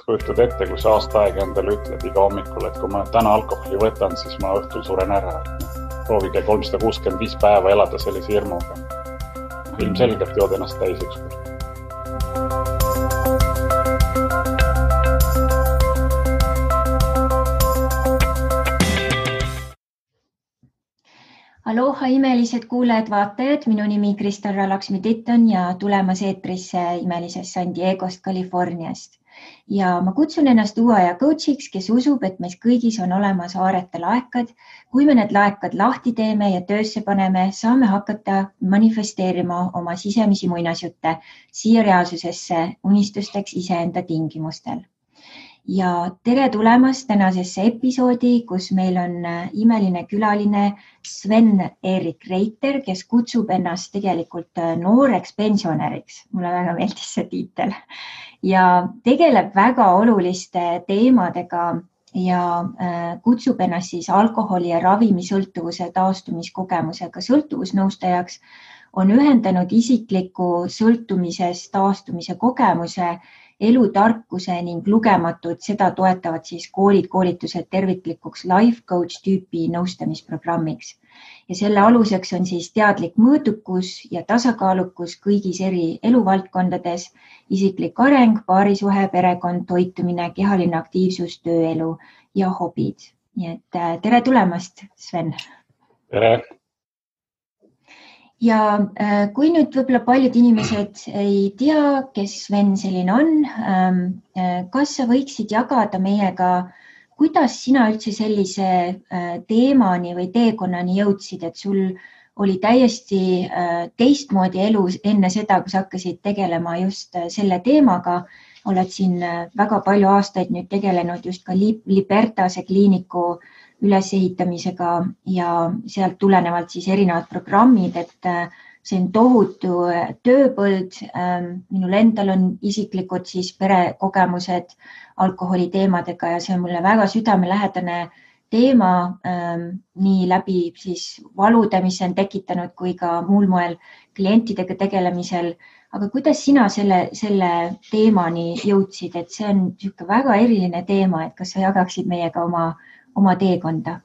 kujutad ette, kui sa aasta aega endale ütled iga hommikul, et kui ma täna alkoholi võtan, siis ma õhtul suren ära. Proovige 365 päeva elada sellise hirmuga. Ilmselgelt jood ennast täis ükskord. Aloha imelised kuulajad, vaatajad, minu nimi Kristal Ralaksmi-Titton ja tulemas eetrisse imelisest San Diegost, Californiast. Ja ma kutsun ennast uue aja coachiks, kes usub, et meis kõigis on olemas aarete laekad. Kui me need laekad lahti teeme ja töösse paneme, saame hakata manifesteerima oma sisemisi muinasjutte siia reaalsusesse unistusteks iseenda tingimustel. Ja tere tulemast tänasesse episoodi, kus meil on imeline külaline Sven-Erik Reiter, kes kutsub ennast tegelikult nooreks pensionäriks. Mulle väga meeldis see tiitel. Ja tegeleb väga oluliste teemadega ja kutsub ennast siis alkoholi ja ravimisõltuvuse taastumiskogemusega sõltuvusnõustajaks. On ühendanud isikliku sõltumisest taastumise kogemuse, elutarkuse ning lugematud, seda toetavad siis koolitused terviklikuks life coach tüüpi nõustamisprogrammiks. Ja selle aluseks on siis teadlik mõõdukus ja tasakaalukus kõigis eri eluvaldkondades, isiklik areng, paarisuhe, perekond, toitumine, kehaline aktiivsus, tööelu ja hobid. Nii et tere tulemast, Sven! Tere! Ja kui nüüd võib-olla paljud inimesed ei tea, kes Sven selline on, kas sa võiksid jagada meiega, kuidas sina üldse sellise teemani või teekonnani jõudsid, et sul oli täiesti teistmoodi elu enne seda, kui sa hakkasid tegelema just selle teemaga. Oled siin väga palju aastaid nüüd tegelenud just ka Libertase kliiniku ülesehitamisega ja sealt tulenevalt siis erinevad programmid, et see on tohutu tööpõld. Minul endal on isiklikud siis perekogemused alkoholi teemadega ja see on mulle väga südamelähedane teema nii läbi siis valude, mis on tekitanud kui ka muul moel klientidega tegelemisel. Aga kuidas sina selle teemani jõudsid, et see on väga eriline teema, et kas sa jagaksid meiega oma teekonda?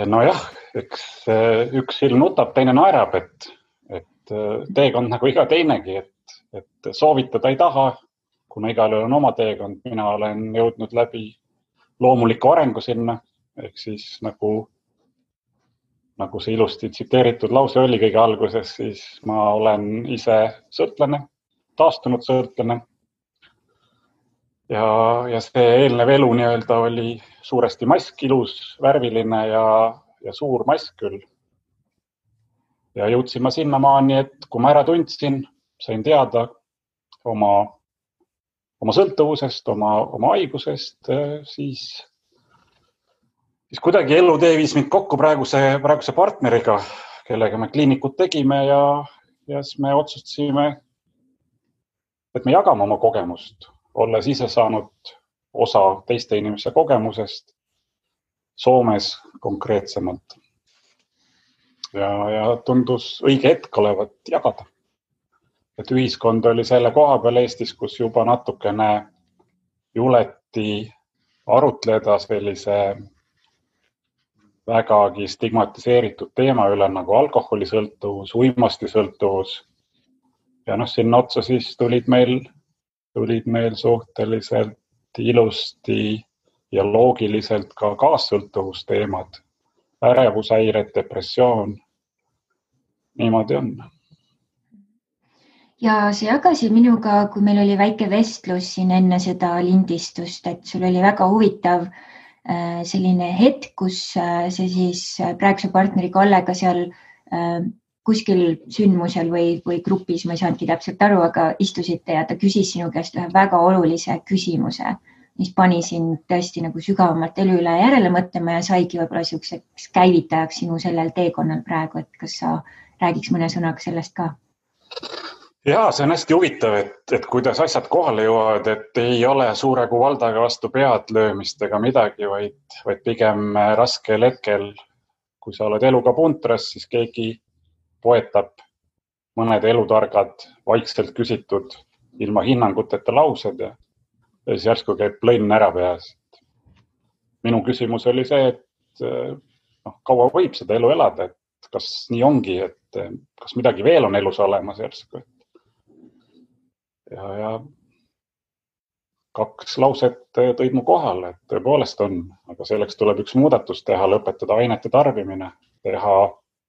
Nojah, eks üks silm nutab, teine naerab, et teekond nagu iga teinegi, et soovitada ei taha, kuna igal on oma teekond. Mina olen jõudnud läbi loomuliku arengu sinna, ehk siis nagu see ilusti tsiteeritud lause oli kõige alguses, siis ma olen ise sõltlane, taastunud sõltlane. Ja see eelnev elu nii-öelda oli suuresti mask, ilus, värviline ja suur mask küll. Ja jõudsin ma sinnamaani, et kui ma ära tundsin, sain teada oma sõltuvusest, oma haigusest, siis kuidagi elutee viis mind kokku praeguse partneriga, kellega me kliinikut tegime ja siis me otsustasime, et me jagame oma kogemust, olles ise saanud osa teiste inimese kogemusest Soomes konkreetsemalt. Ja tundus õige hetk olevat jagada. Et ühiskond oli selle koha peal Eestis, kus juba natukene juleti arutleda sellise vägagi stigmatiseeritud teema üle nagu alkoholisõltuvus, uimastisõltuvus. Ja sinna otsa siis tulid meil suhteliselt ilusti ja loogiliselt ka kaassõltuvusteemad, ärevushäired, depressioon. Niimoodi on. Ja sa jagasid minuga, kui meil oli väike vestlus siin enne seda lindistust, et sul oli väga huvitav selline hetk, kus see siis praeguse partneri Kallega seal kuskil sündmusel või grupis, ma ei saanudki täpselt aru, aga istusite ja ta küsis sinu käest ühe väga olulise küsimuse, mis pani sind tõesti nagu sügavamalt elu üle järele mõtlema ja saigi võib-olla selliseks käivitajaks sinu sellel teekonnal praegu, et kas sa räägiks mõne sõnaga sellest ka? Jaa, see on hästi huvitav, et kuidas asjad kohale jõuavad, et ei ole suure kui valdaga vastu pead löömist ega midagi, vaid pigem raskel hetkel, kui sa oled eluga puntras, siis keegi poetab mõned elutargad, vaikselt küsitud ilma hinnanguteta laused ja siis järsku käib plõnn ära peas. Minu küsimus oli see, et kaua võib seda elu elada, et kas nii ongi, et kas midagi veel on elus olemas järsku. Ja 2 lauset tõid mu kohale, et tõepoolest on, aga selleks tuleb üks muudatus teha, lõpetada ainete tarbimine, teha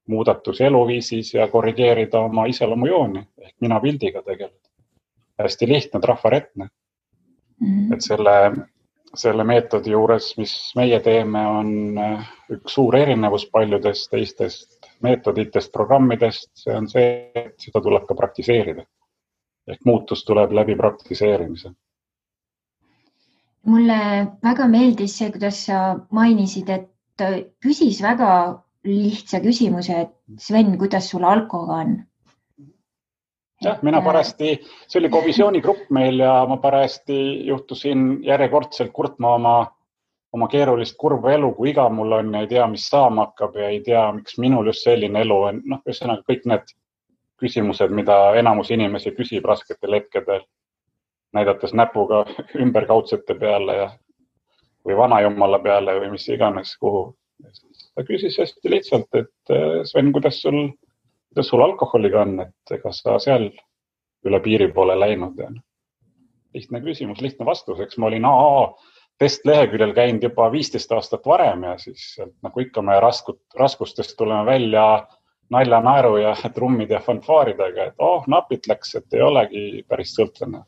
muudatus eluviisis ja korrigeerida oma iseloomujooni ehk mina pildiga tegeleda. Hästi lihtne, trafaretne. Et selle meetodi juures, mis meie teeme, on üks suur erinevus paljudest teistest meetoditest, programmidest. See on see, et seda tuleb ka praktiseerida. Ehk muutus tuleb läbi praktiseerimise. Mulle väga meeldis see, kuidas sa mainisid, et küsis väga lihtsa küsimuse, et Sven, kuidas sul alkoga on? Jah, mina parasti, see oli kovisioonigrupp meil ja ma parasti juhtusin järjekordselt kurtma oma keerulist kurva elu, kui iga mul on ja ei tea, mis saama hakkab ja ei tea, miks minul just selline elu on. Ühesõnaga kõik need küsimused, mida enamus inimesi küsib rasketel hetkedel, näidates näpuga ümberkaudsete peale või vanajumala peale või mis iganes kuhu. Ta küsis hästi lihtsalt, et Sven, kuidas sul alkoholiga on, et ega sa seal üle piiri poole läinud. Lihtne küsimus, lihtne vastus. Eks ma olin AA testleheküljel käinud juba 15 aastat varem ja siis nagu ikka me raskustest tuleme välja nalja, naeru ja trummid ja fanfaaridega, et napit läks, et ei olegi päris sõltlane.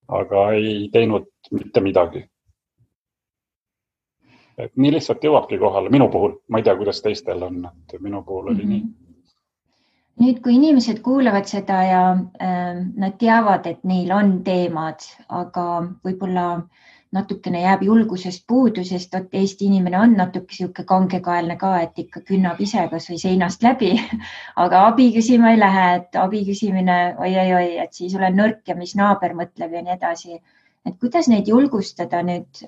Aga ei teinud mitte midagi. Et nii lihtsalt jõuabki kohale minu puhul. Ma ei tea, kuidas teistel on, et minu puhul oli nii. Nüüd, kui inimesed kuulavad seda ja nad teavad, et neil on teemad, aga võib-olla natukene jääb julgusest puudu, sest Eesti inimene on natuke siuke kangekaelne ka, et ikka künnab ise kas või seinast läbi, aga abi küsima ei lähe, et abi küsimine, oi, et siis olen nõrk ja mis naaber mõtleb ja nii edasi. Et kuidas neid julgustada nüüd?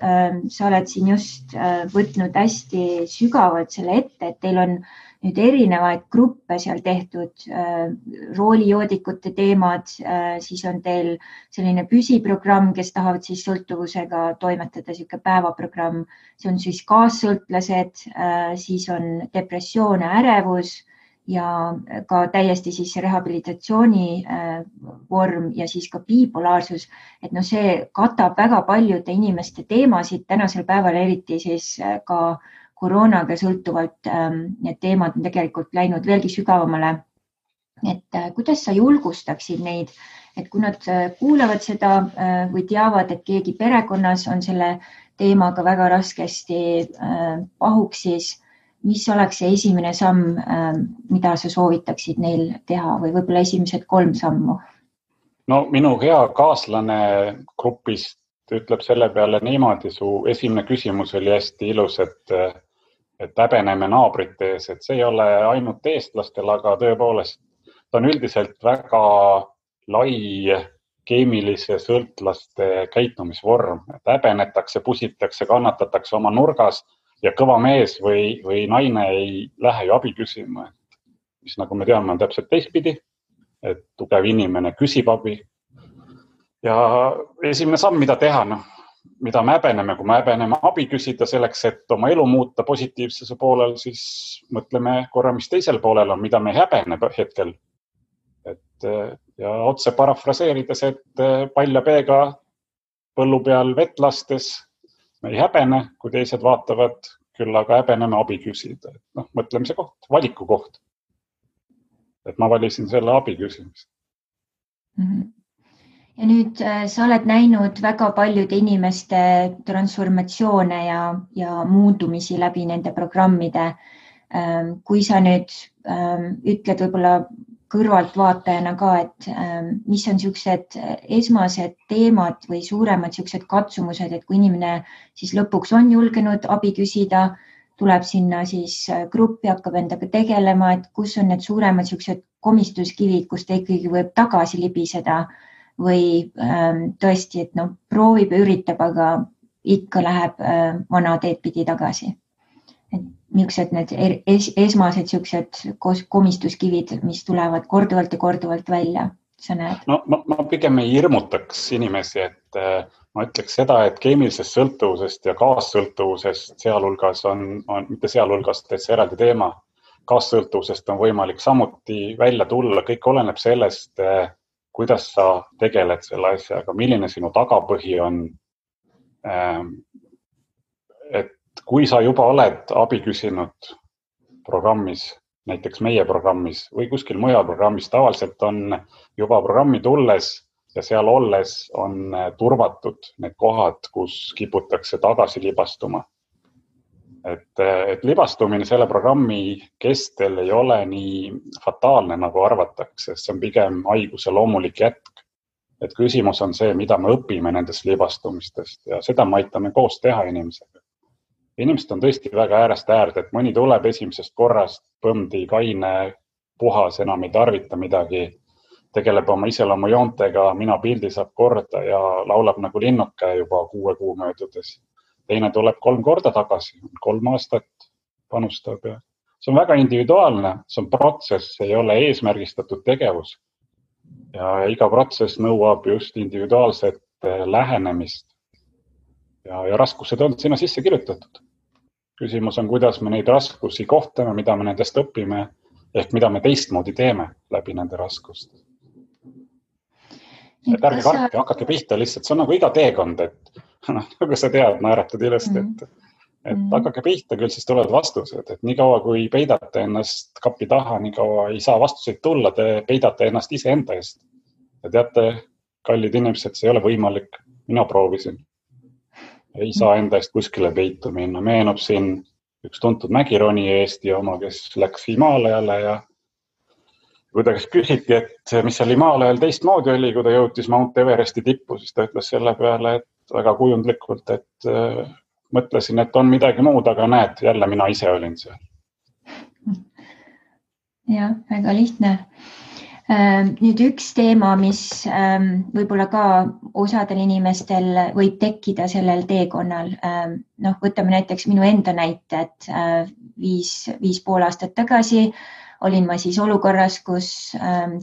Sa oled siin just võtnud hästi sügavalt selle ette, et teil on nüüd erinevaid gruppe seal tehtud, roolijoodikute teemad, siis on teil selline püsiprogramm, kes tahavad siis sõltuvusega toimetada, siuke päevaprogramm, see on siis kaassõltlased, siis on depressioon ja ärevus ja ka täiesti siis rehabilitatsiooni vorm ja siis ka bipolaarsus, et see katab väga paljude inimeste teemasid tänasel päeval, eriti siis ka koroonaga sõltuvalt need teemad on tegelikult läinud veelgi sügavamale. Et kuidas sa julgustaksid neid, et kui nad kuulavad seda või teavad, et keegi perekonnas on selle teemaga väga raskesti pahuks, siis mis oleks see esimene samm, mida sa soovitaksid neil teha või võib-olla esimesed 3 sammu? No minu hea kaaslane grupist ütleb selle peale niimoodi, su esimene küsimus oli hästi ilus, et häbeneme naabrite ees, et see ei ole ainult eestlastel, aga tõepoolest ta on üldiselt väga lai keemilise sõltlaste käitumisvorm. Häbenetakse, pusitakse, kannatatakse oma nurgas ja kõva mees või naine ei lähe ju abi küsima. Mis nagu me teame, on täpselt teistpidi, et tugev inimene küsib abi. Ja esimene samm, mida teha, mida me häbeneme, kui me häbeneme abi küsida selleks, et oma elu muuta positiivsuse poolel, siis mõtleme korra, mis teisel poolel on, mida me häbene hetkel. Ja otse parafraseerides, et palja peega põllu peal vett lastes me ei häbene, kui teised vaatavad, küll aga häbeneme abi küsida. Mõtlemise koht, valiku koht. Et ma valisin selle abi küsimist. Ja nüüd sa oled näinud väga paljude inimeste transformatsioone ja muundumisi läbi nende programmide. Kui sa nüüd ütled võib-olla kõrvaltvaatajana ka, et mis on siuksed esmased teemad või suuremad siuksed katsumused, et kui inimene siis lõpuks on julgenud abi küsida, tuleb sinna siis gruppi, hakkab endaga tegelema, et kus on need suuremad siuksed komistuskivid, kus ta ikkagi võib tagasi libiseda või tõesti, et proovib ja üritab, aga ikka läheb vana teed pidi tagasi. Et millised need esmased siuksed komistuskivid, mis tulevad korduvalt ja korduvalt välja sa näed? No, ma pigem ei hirmutaks inimesi, et ma ütleks seda, et keemilisest sõltuvusest ja kaassõltuvusest sealhulgas mitte sealhulgas, et see eraldi teema, kaassõltuvusest on võimalik samuti välja tulla. Kõik oleneb sellest, kuidas sa tegeled selle asjaga, milline sinu tagapõhi on. Et kui sa juba oled abi küsinud programmis, näiteks meie programmis või kuskil mujal programmis, tavaliselt on juba programmi tulles ja seal olles on turvatud need kohad, kus kiputakse tagasi libastuma. Et libastumine selle programmi kestel ei ole nii fataalne, nagu arvatakse, see on pigem haiguse loomulik jätk. Et küsimus on see, mida me õpime nendest libastumistest ja seda me aitame koos teha inimesega. Inimesed on tõesti väga äärest äärde, et mõni tuleb esimesest korrast, põmdi, kaine, puhas, enam ei tarvita midagi, tegeleb oma iseloomujoontega, mina pildi saab korda ja laulab nagu linnuke juba 6 kuu möödudes. Teine tuleb 3 korda tagasi, 3 aastat panustab ja see on väga individuaalne, see on protsess, ei ole eesmärgistatud tegevus ja iga protsess nõuab just individuaalset lähenemist ja raskused on sinna sisse kirjutatud. Küsimus on, kuidas me neid raskusi kohtame, mida me nendest õpime ehk mida me teistmoodi teeme läbi nende raskuste. Et ärge kartke, hakake pihta lihtsalt, see on nagu iga teekond, et nagu sa tead, naeratad ilusti, et hakake pihta, küll siis tulevad vastused, et nii kaua kui peidate ennast kapi taha, nii kaua ei saa vastuseid tulla, te peidate ennast ise enda eest. Ja teate, kallid inimesed, see ei ole võimalik, mina proovisin. Ei saa enda eest kuskile peitu minna. Meenub siin üks tuntud mägironi Eesti oma, kes läks Himaalajale ja kui ta küsiti, et mis seal Himaalajal teistmoodi oli, kui ta jõutis Mount Everesti tippu, siis ta ütles selle peale, et väga kujundlikult, et mõtlesin, et on midagi muud, aga näed, jälle mina ise olin seal. Ja, väga lihtne. Nüüd üks teema, mis võib-olla ka osadel inimestel võib tekkida sellel teekonnal. Võtame näiteks minu enda näite, et 5,5 aastat tagasi olin ma siis olukorras, kus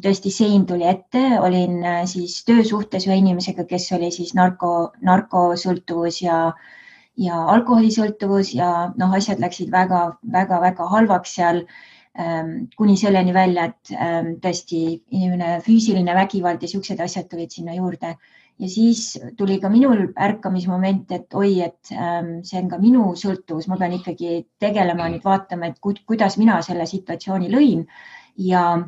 tõesti sein tuli ette, olin siis töösuhtes ühe inimesega, kes oli siis narkosõltuvus ja alkoholisõltuvus ja asjad läksid väga halvaks seal. Kuni selleni välja, et tõesti inimene füüsiline vägivald ja siuksed asjad tulid sinna juurde. Ja siis tuli ka minul ärkamismoment, et et see on ka minu sõltuvus, ma pean ikkagi tegelema, nüüd vaatama, et kuidas mina selle situatsiooni lõin. Ja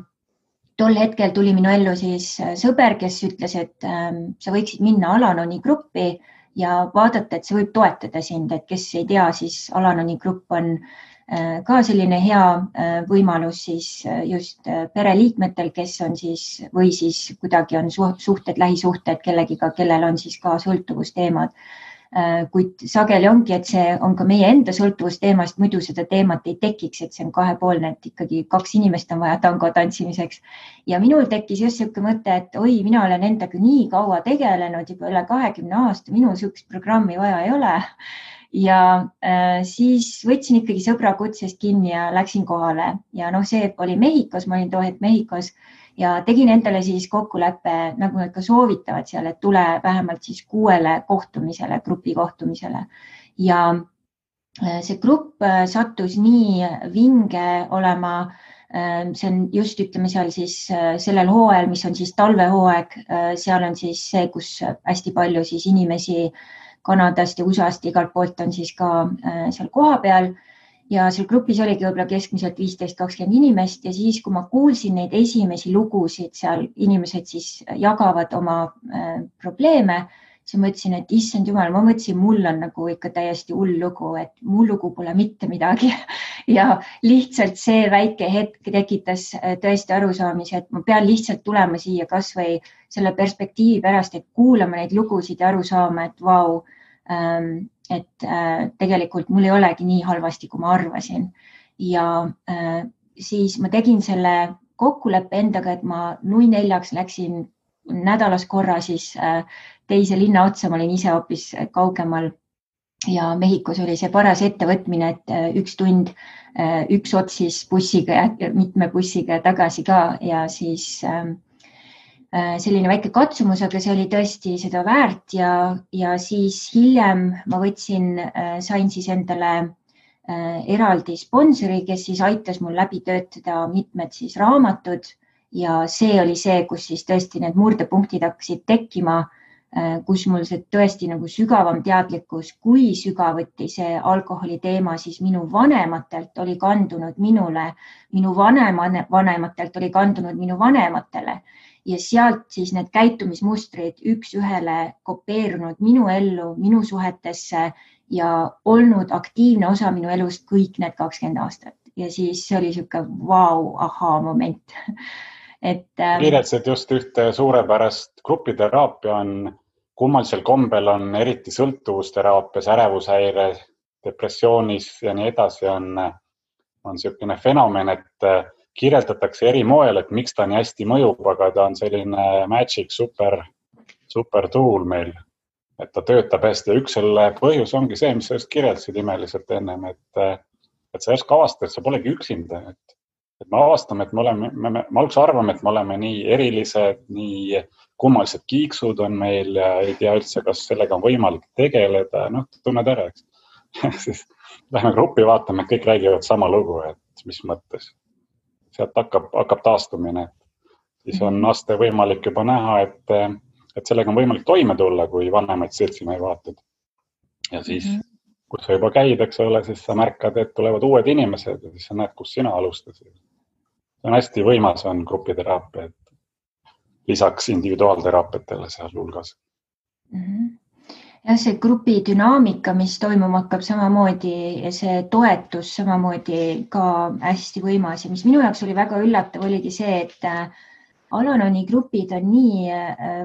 tol hetkel tuli minu ellu siis sõber, kes ütles, et sa võiksid minna Al-Anoni gruppi ja vaadata, et see võib toetada sind, et kes ei tea, siis Al-Anoni grupp on ka selline hea võimalus siis just pereliikmetel, kes on siis või siis kuidagi on suhted, lähisuhted kellegiga, kellel on siis ka sõltuvusteemad. Kuid sageli ongi, et see on ka meie enda sõltuvusteemast, muidu seda teemat ei tekiks, et see on kahepoolne, et ikkagi 2 inimest on vaja tango tantsimiseks. Ja minul tekkis just selline mõte, et mina olen endaga nii kaua tegelenud, juba üle 20 aasta, minul sellist programmi vaja ei ole. Ja siis võtsin ikkagi sõbra kutsest kinni ja läksin kohale ja see oli Mehhikos, ma olin too hetk Mehhikos ja tegin endale siis kokkuleppe, nagu nad ka soovitavad seal, et tule vähemalt siis 6 kohtumisele, grupi kohtumisele. Ja see grupp sattus nii vinge olema, see on just ütleme seal siis sellel hooajal, mis on siis talvehooaeg, seal on siis see, kus hästi palju siis inimesi Kanadast ja USA-st igalt poolt on siis ka seal koha peal ja seal grupis oligi võib-olla keskmiselt 15-20 inimest ja siis, kui ma kuulsin neid esimesi lugusid, seal inimesed siis jagavad oma probleeme, siis ma mõtlesin, et issand jumal, ma mõtlesin, mul on nagu ikka täiesti hull lugu, et mu lugu pole mitte midagi ja lihtsalt see väike hetk tekitas tõesti arusaamise, et ma pean lihtsalt tulema siia kas või selle perspektiivi pärast, et kuulama neid lugusid ja aru saama, et vau, et tegelikult mul ei olegi nii halvasti, kui ma arvasin. Ja siis ma tegin selle kokkuleppe endaga, et ma 04:00 läksin nädalas korra siis teise linna otsa, ma olin ise hoopis kaugemal ja Mehhikos oli see paras ettevõtmine, et 1 tund, 1 ots siis bussiga ja mitme bussiga tagasi ka ja siis selline väike katsumus, aga see oli tõesti seda väärt ja siis hiljem ma sain siis endale eraldi sponsori, kes siis aitas mul läbi töötada mitmed siis raamatud ja see oli see, kus siis tõesti need murdepunktid hakkasid tekkima, kus mul see tõesti nagu sügavam teadlikkus, kui sügavuti see alkoholi teema siis minu vanematelt oli kandunud minule, minu vanematelt oli kandunud minu vanematele ja sealt siis need käitumismustrid üks ühele kopeerunud minu ellu, minu suhetesse ja olnud aktiivne osa minu elust kõik need 20 aastat. Ja siis see oli siuke vau, ahaa moment. Kirjeldasid just ühte suurepärast grupiteraapia on kummalisel kombel on eriti sõltuvusteraapias, ärevushäire, depressioonis ja nii edasi on selline fenomen, et kirjeldatakse eri moel, et miks ta nii hästi mõjub, aga ta on selline magic super tool meil, et ta töötab hästi. Üks selle põhjus ongi see, mis sa just kirjeldasid imeliselt ennem, et sa järsku avastad, et sa polegi üksinda. Et me avastame, et me alguses arvame, et me oleme nii erilised, nii kummalised kiiksud on meil ja ei tea üldse, kas sellega on võimalik tegeleda. Tunned ära, eks. Siis lähme gruppi vaatame, et kõik räägivad sama lugu, et mis mõttes. Sealt hakkab taastumine. Siis on aste võimalik juba näha, et sellega on võimalik toime tulla, kui vanemaid seltsimehi vaatad. Ja siis, kus sa juba käid, eks ole, siis sa märkad, et tulevad uued inimesed ja siis sa näed, kus sina alustasid. See on hästi võimas on grupiteraapia, et lisaks individuaalteraapiatele seal hulgas. Ja see grupi dünaamika, mis toimuma hakkab samamoodi ja see toetus samamoodi ka hästi võimas ja mis minu jaoks oli väga üllatav, oligi see, et Al-Anoni grupid on nii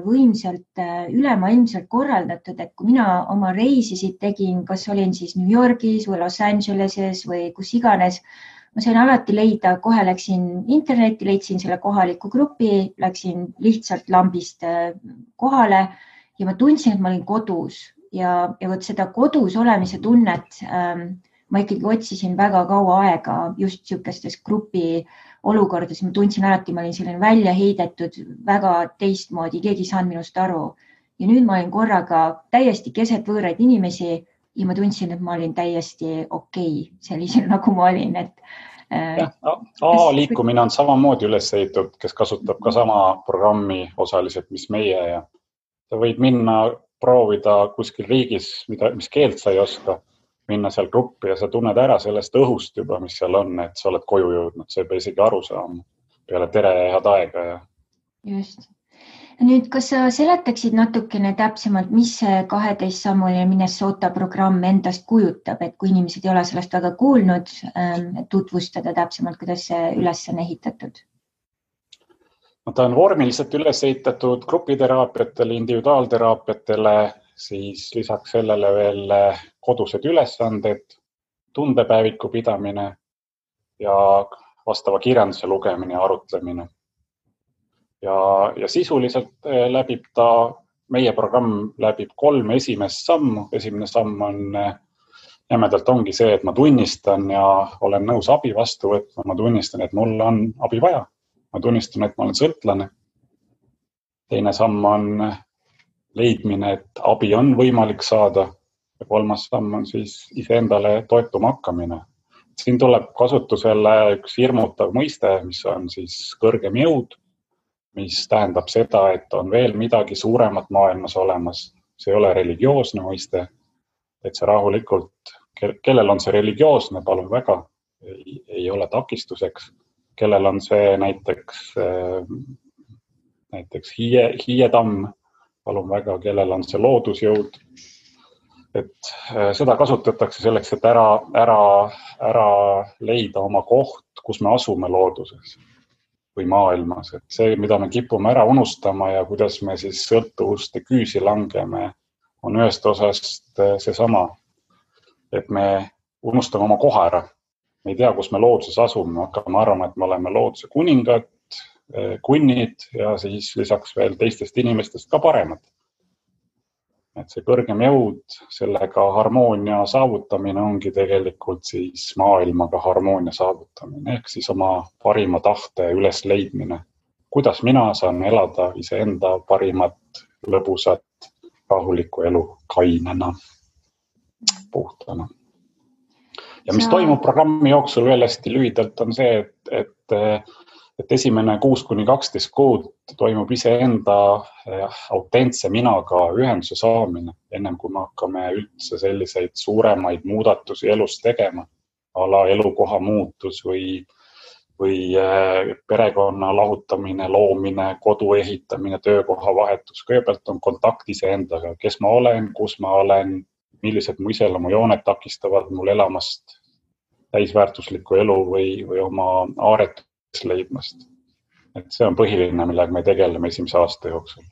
võimsalt ülemaailmselt korraldatud, et kui mina oma reisisid tegin, kas olin siis New Yorgis või Los Angeleses või kus iganes, ma sain alati leida, kohe läksin internetti, leidsin selle kohaliku grupi, läksin lihtsalt lambist kohale ja ma tundsin, et ma olin kodus ja võt seda kodus olemise tunnet ma ikkagi otsisin väga kaua aega just siukestes grupi olukordades. Ma tundsin alati, ma olin selline välja heidetud, väga teistmoodi, keegi ei saanud minust aru. Ja nüüd ma olin korraga täiesti keset võõraid inimesi ja ma tundsin, et ma olin täiesti okei, sellisel nagu ma olin. Liikumine on samamoodi üles ehitatud, kes kasutab ka sama programmi osaliselt, mis meie ja sa võid minna proovida kuskil riigis, mis keelt sa ei oska, minna seal gruppi ja sa tunned ära sellest õhust juba, mis seal on, et sa oled koju jõudnud, sa ei pea isegi aru saama peale tere ja head aega. Just. Nüüd, kas sa seletaksid natukene täpsemalt, mis see 12-sammuline Minnesota programm endast kujutab, et kui inimesed ei ole sellest väga kuulnud, tutvustada täpsemalt, kuidas see üles on ehitatud? Ta on vormiliselt üles ehitatud grupiteraapiatele, individuaalteraapiatele, siis lisaks sellele veel kodused ülesanded, tundepäeviku pidamine ja vastava kirjanduse lugemine ja arutlemine. Ja sisuliselt läbib meie programm läbib 3 esimest sammu. Esimene samm on jämedalt ongi see, et ma tunnistan ja olen nõus abi vastu võtma. Ma tunnistan, et mul on abi vaja. Ma tunnistan, et ma olen sõltlane. Teine samm on leidmine, et abi on võimalik saada. Ja 3. samm on siis iseendale toetuma hakkamine. Siin tuleb kasutusele üks hirmutav mõiste, mis on siis kõrgem jõud, mis tähendab seda, et on veel midagi suuremat maailmas olemas. See ei ole religioosne mõiste, et see rahulikult, kellel on see religioosne, palun väga, ei ole takistuseks. Kellel on see näiteks hiietamm, palun väga, kellel on see loodusjõud. Et seda kasutatakse selleks, et ära leida oma koht, kus me asume looduses või maailmas. Et see, mida me kipume ära unustama ja kuidas me siis sõltuvuste küüsi langeme, on ühest osast seesama, et me unustame oma koha ära. Me ei tea, kus me looduses asume, hakkame arvama, et me oleme looduse kuningad, kunnid ja siis lisaks veel teistest inimestest ka paremad. Et see kõrgem jõud, sellega harmoonia saavutamine ongi tegelikult siis maailmaga harmoonia saavutamine, ehk siis oma parima tahte üles leidmine kuidas mina saan elada iseenda parimat, lõbusat, rahulikku elu kainena, puhtana. Ja mis toimub programmi jooksul veel hästi lühidalt on see, et esimene 6-12 kuud toimub iseenda autentse minaga ühenduse saamine, ennem kui me hakkame üldse selliseid suuremaid muudatusi elus tegema, ala elukoha muutus või perekonna lahutamine, loomine, kodu ehitamine, töökoha vahetus. Kõigepealt on kontakt iseendaga, kes ma olen, kus ma olen, millised mu iseloomujooned takistavad mul elamast täisväärtuslikku elu või oma aaretust leidmast. Et see on põhiline, millega me tegeleme esimese aasta jooksul.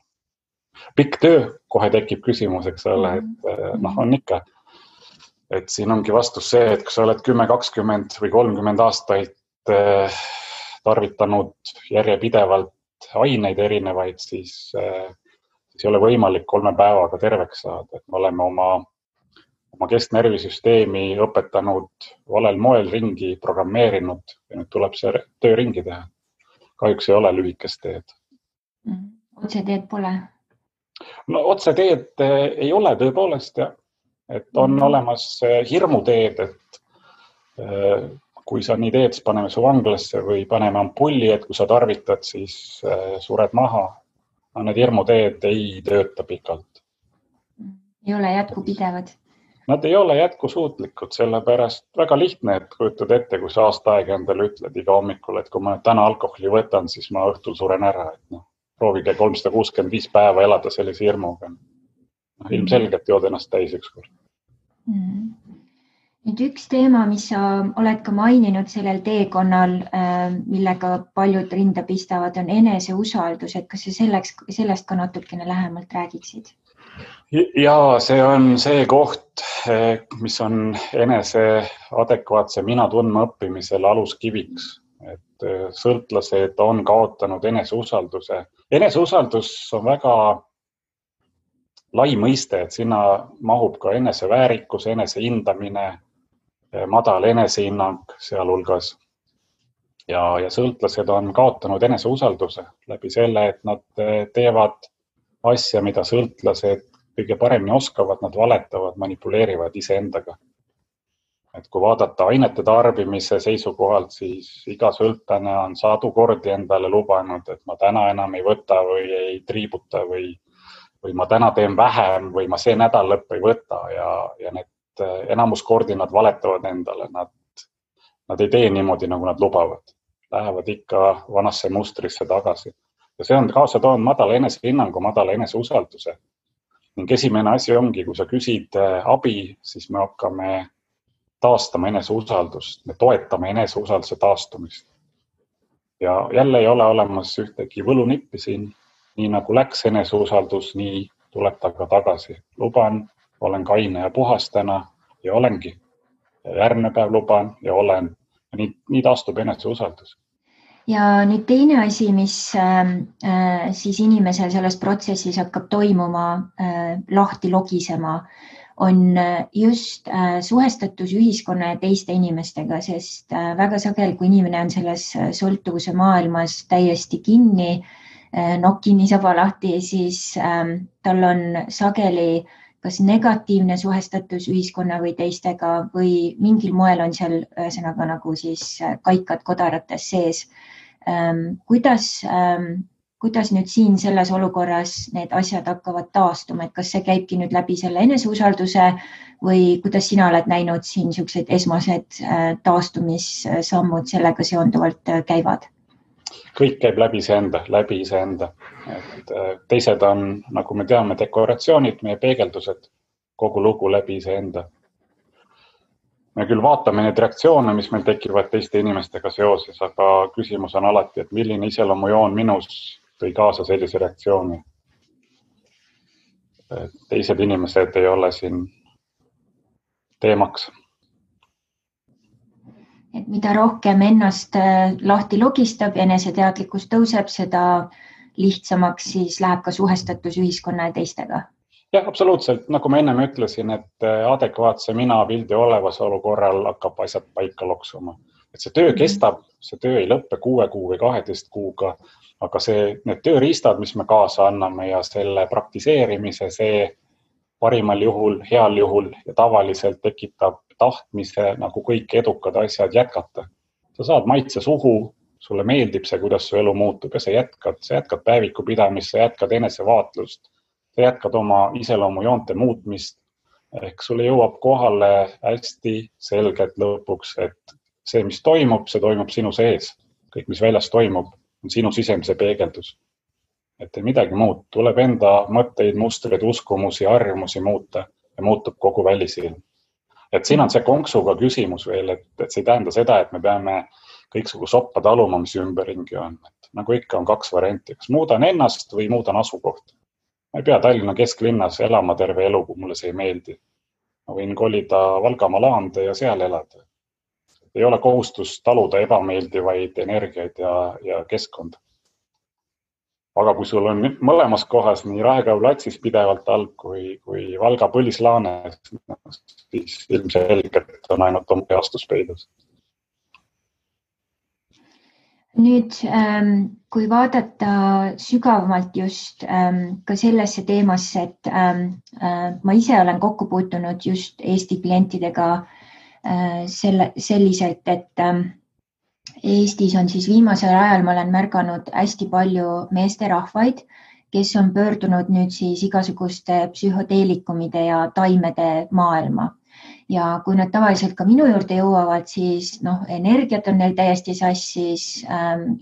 Pikk töö, kohe tekib küsimus, eks ole, et on ikka. Et siin ongi vastus see, et kui sa oled 10, 20 või 30 aastaid tarvitanud järjepidevalt aineid erinevaid, siis ei ole võimalik 3 päevaga terveks saada. Et me oleme oma kesknervisüsteemi õpetanud valel moel ringi, programmeerinud ja nüüd tuleb see töö ringi teha. Kahjuks ei ole lühikest teed. Otseteed pole? No otseteed ei ole tõepoolest, jah. Et on olemas hirmuteed, et kui sa nii teed, siis paneme su vanglasse või paneme ampulli, et kui sa tarvitad, siis sured maha. Need hirmuteed ei tööta pikalt. Ei ole jätkupidevad? Nad ei ole jätkusuutlikud, sellepärast väga lihtne, et kujutad ette, kui sa aasta aega endale ütled iga hommikul, et kui ma täna alkoholi võtan, siis ma õhtul suren ära. Et proovige 365 päeva elada sellise hirmuga. Ilmselgelt jood ennast täis ükskord. Nüüd üks teema, mis sa oled ka maininud sellel teekonnal, millega paljud rinda pistavad, on eneseusaldus. Et kas sa sellest ka natukene lähemalt räägiksid? Ja see on see koht, mis on enese adekvaatse mina tundma õppimisel aluskiviks. Et sõltlased on kaotanud eneseusalduse. Eneseusaldus on väga lai mõiste, et sinna mahub ka eneseväärikus, enesehindamine, madal enesehinnang sealhulgas. Ja sõltlased on kaotanud eneseusalduse läbi selle, et nad teevad asja, mida sõltlased kõige paremini oskavad, nad valetavad, manipuleerivad iseendaga. Et kui vaadata ainete tarbimise seisukohalt, siis iga sõltlane on 100 kordi endale lubanud, et ma täna enam ei võta või ei triibuta või ma täna teen vähem või ma see nädal lõpp ei võta ja need enamus kordi nad valetavad endale. Nad ei tee niimoodi, nagu nad lubavad. Lähevad ikka vanasse mustrisse tagasi. Ja see on kaasa toonud madala enesehinnangu, madala eneseusalduse. Ning esimene asi ongi, kui sa küsid abi, siis me hakkame taastama eneseusaldust. Me toetame eneseusalduse taastumist. Ja jälle ei ole olemas ühtegi võlunippi siin. Nii nagu läks eneseusaldus, nii tuleb ta ka tagasi. Luban, olen kaine ja puhas täna ja olengi. Järgmine päev luban ja olen. Ja nii taastub eneseusaldus. Ja nüüd teine asi, mis siis inimesel selles protsessis hakkab toimuma, lahti logisema, on just suhestatus ühiskonna ja teiste inimestega, sest väga sageli, kui inimene on selles sõltuvuse maailmas täiesti kinni, nokkini saba lahti, siis tal on sageli kas negatiivne suhestatus ühiskonna või teistega või mingil moel on seal ühesõnaga nagu siis kaikad kodarates sees. Kuidas nüüd siin selles olukorras need asjad hakkavad taastuma, et kas see käibki nüüd läbi selle eneseusalduse või kuidas sina oled näinud siin niisugused esmased taastumissammud sellega seonduvalt käivad? Kõik käib läbi iseenda. Et teised on, nagu me teame, dekoratsioonid, meie peegeldused, kogu lugu läbi iseenda. Me küll vaatame neid reaktsioone, mis meil tekivad teiste inimestega seoses, aga küsimus on alati, et milline iseloomujoon minus tõi kaasa sellise reaktsiooni. Teised inimesed ei ole siin teemaks. Et mida rohkem ennast lahti logistab ja eneseteadlikkus tõuseb, seda lihtsamaks siis läheb ka suhestatus ühiskonna ja teistega. Jah, absoluutselt. Nagu ma ennem ütlesin, et adekvaatse mina pildi olevasolu korral hakkab asjad paika loksuma. et see töö kestab, see töö ei lõppe 6 kuu või 12 kuuga, aga need tööriistad, mis me kaasa anname ja selle praktiseerimise, see parimal juhul, heal juhul ja tavaliselt tekitab tahtmise nagu kõik edukad asjad jätkata. Sa saad maitse suhu, sulle meeldib see, kuidas su elu muutub ja sa jätkad päeviku pidamist, sa jätkad enesevaatlust, sa jätkad oma iseloomujoonte muutmist. Ehk sulle jõuab kohale hästi selgelt lõpuks, et see, mis toimub, see toimub sinu sees. Kõik, mis väljas toimub, on sinu sisemise peegeldus. Et ei midagi muud. Tuleb enda mõtteid, mustreid, uskumusi, harjumusi muuta ja muutub kogu välisilm. Et siin on see konksuga küsimus veel, et see ei tähenda seda, et me peame kõiksugu soppa taluma, mis ümberringi on. Et nagu ikka on 2 varianti. Kas muudan ennast või muudan asukohta? Ma ei pea Tallinna kesklinnas elama terve elu, kui mulle see ei meeldi. Ma võin kolida Valgamaa laande ja seal elada. Ei ole kohustus taluda ebameeldivaid energiaid ja keskkonda. Aga kui sul on mõlemas kohas nii Raekoja platsis pidevalt halb kui Valga põlislaanes, siis ilmselgelt on ainult oma heastus peidus. Nüüd, kui vaadata sügavamalt just ka sellesse teemasse, et ma ise olen kokku puutunud just Eesti klientidega selliselt, et Eestis on siis viimasel ajal, ma olen märganud hästi palju meesterahvaid, kes on pöördunud nüüd siis igasuguste psühhoteelikumide ja taimede maailma. Ja kui nad tavaliselt ka minu juurde jõuavad, siis energiat on neil täiesti sassis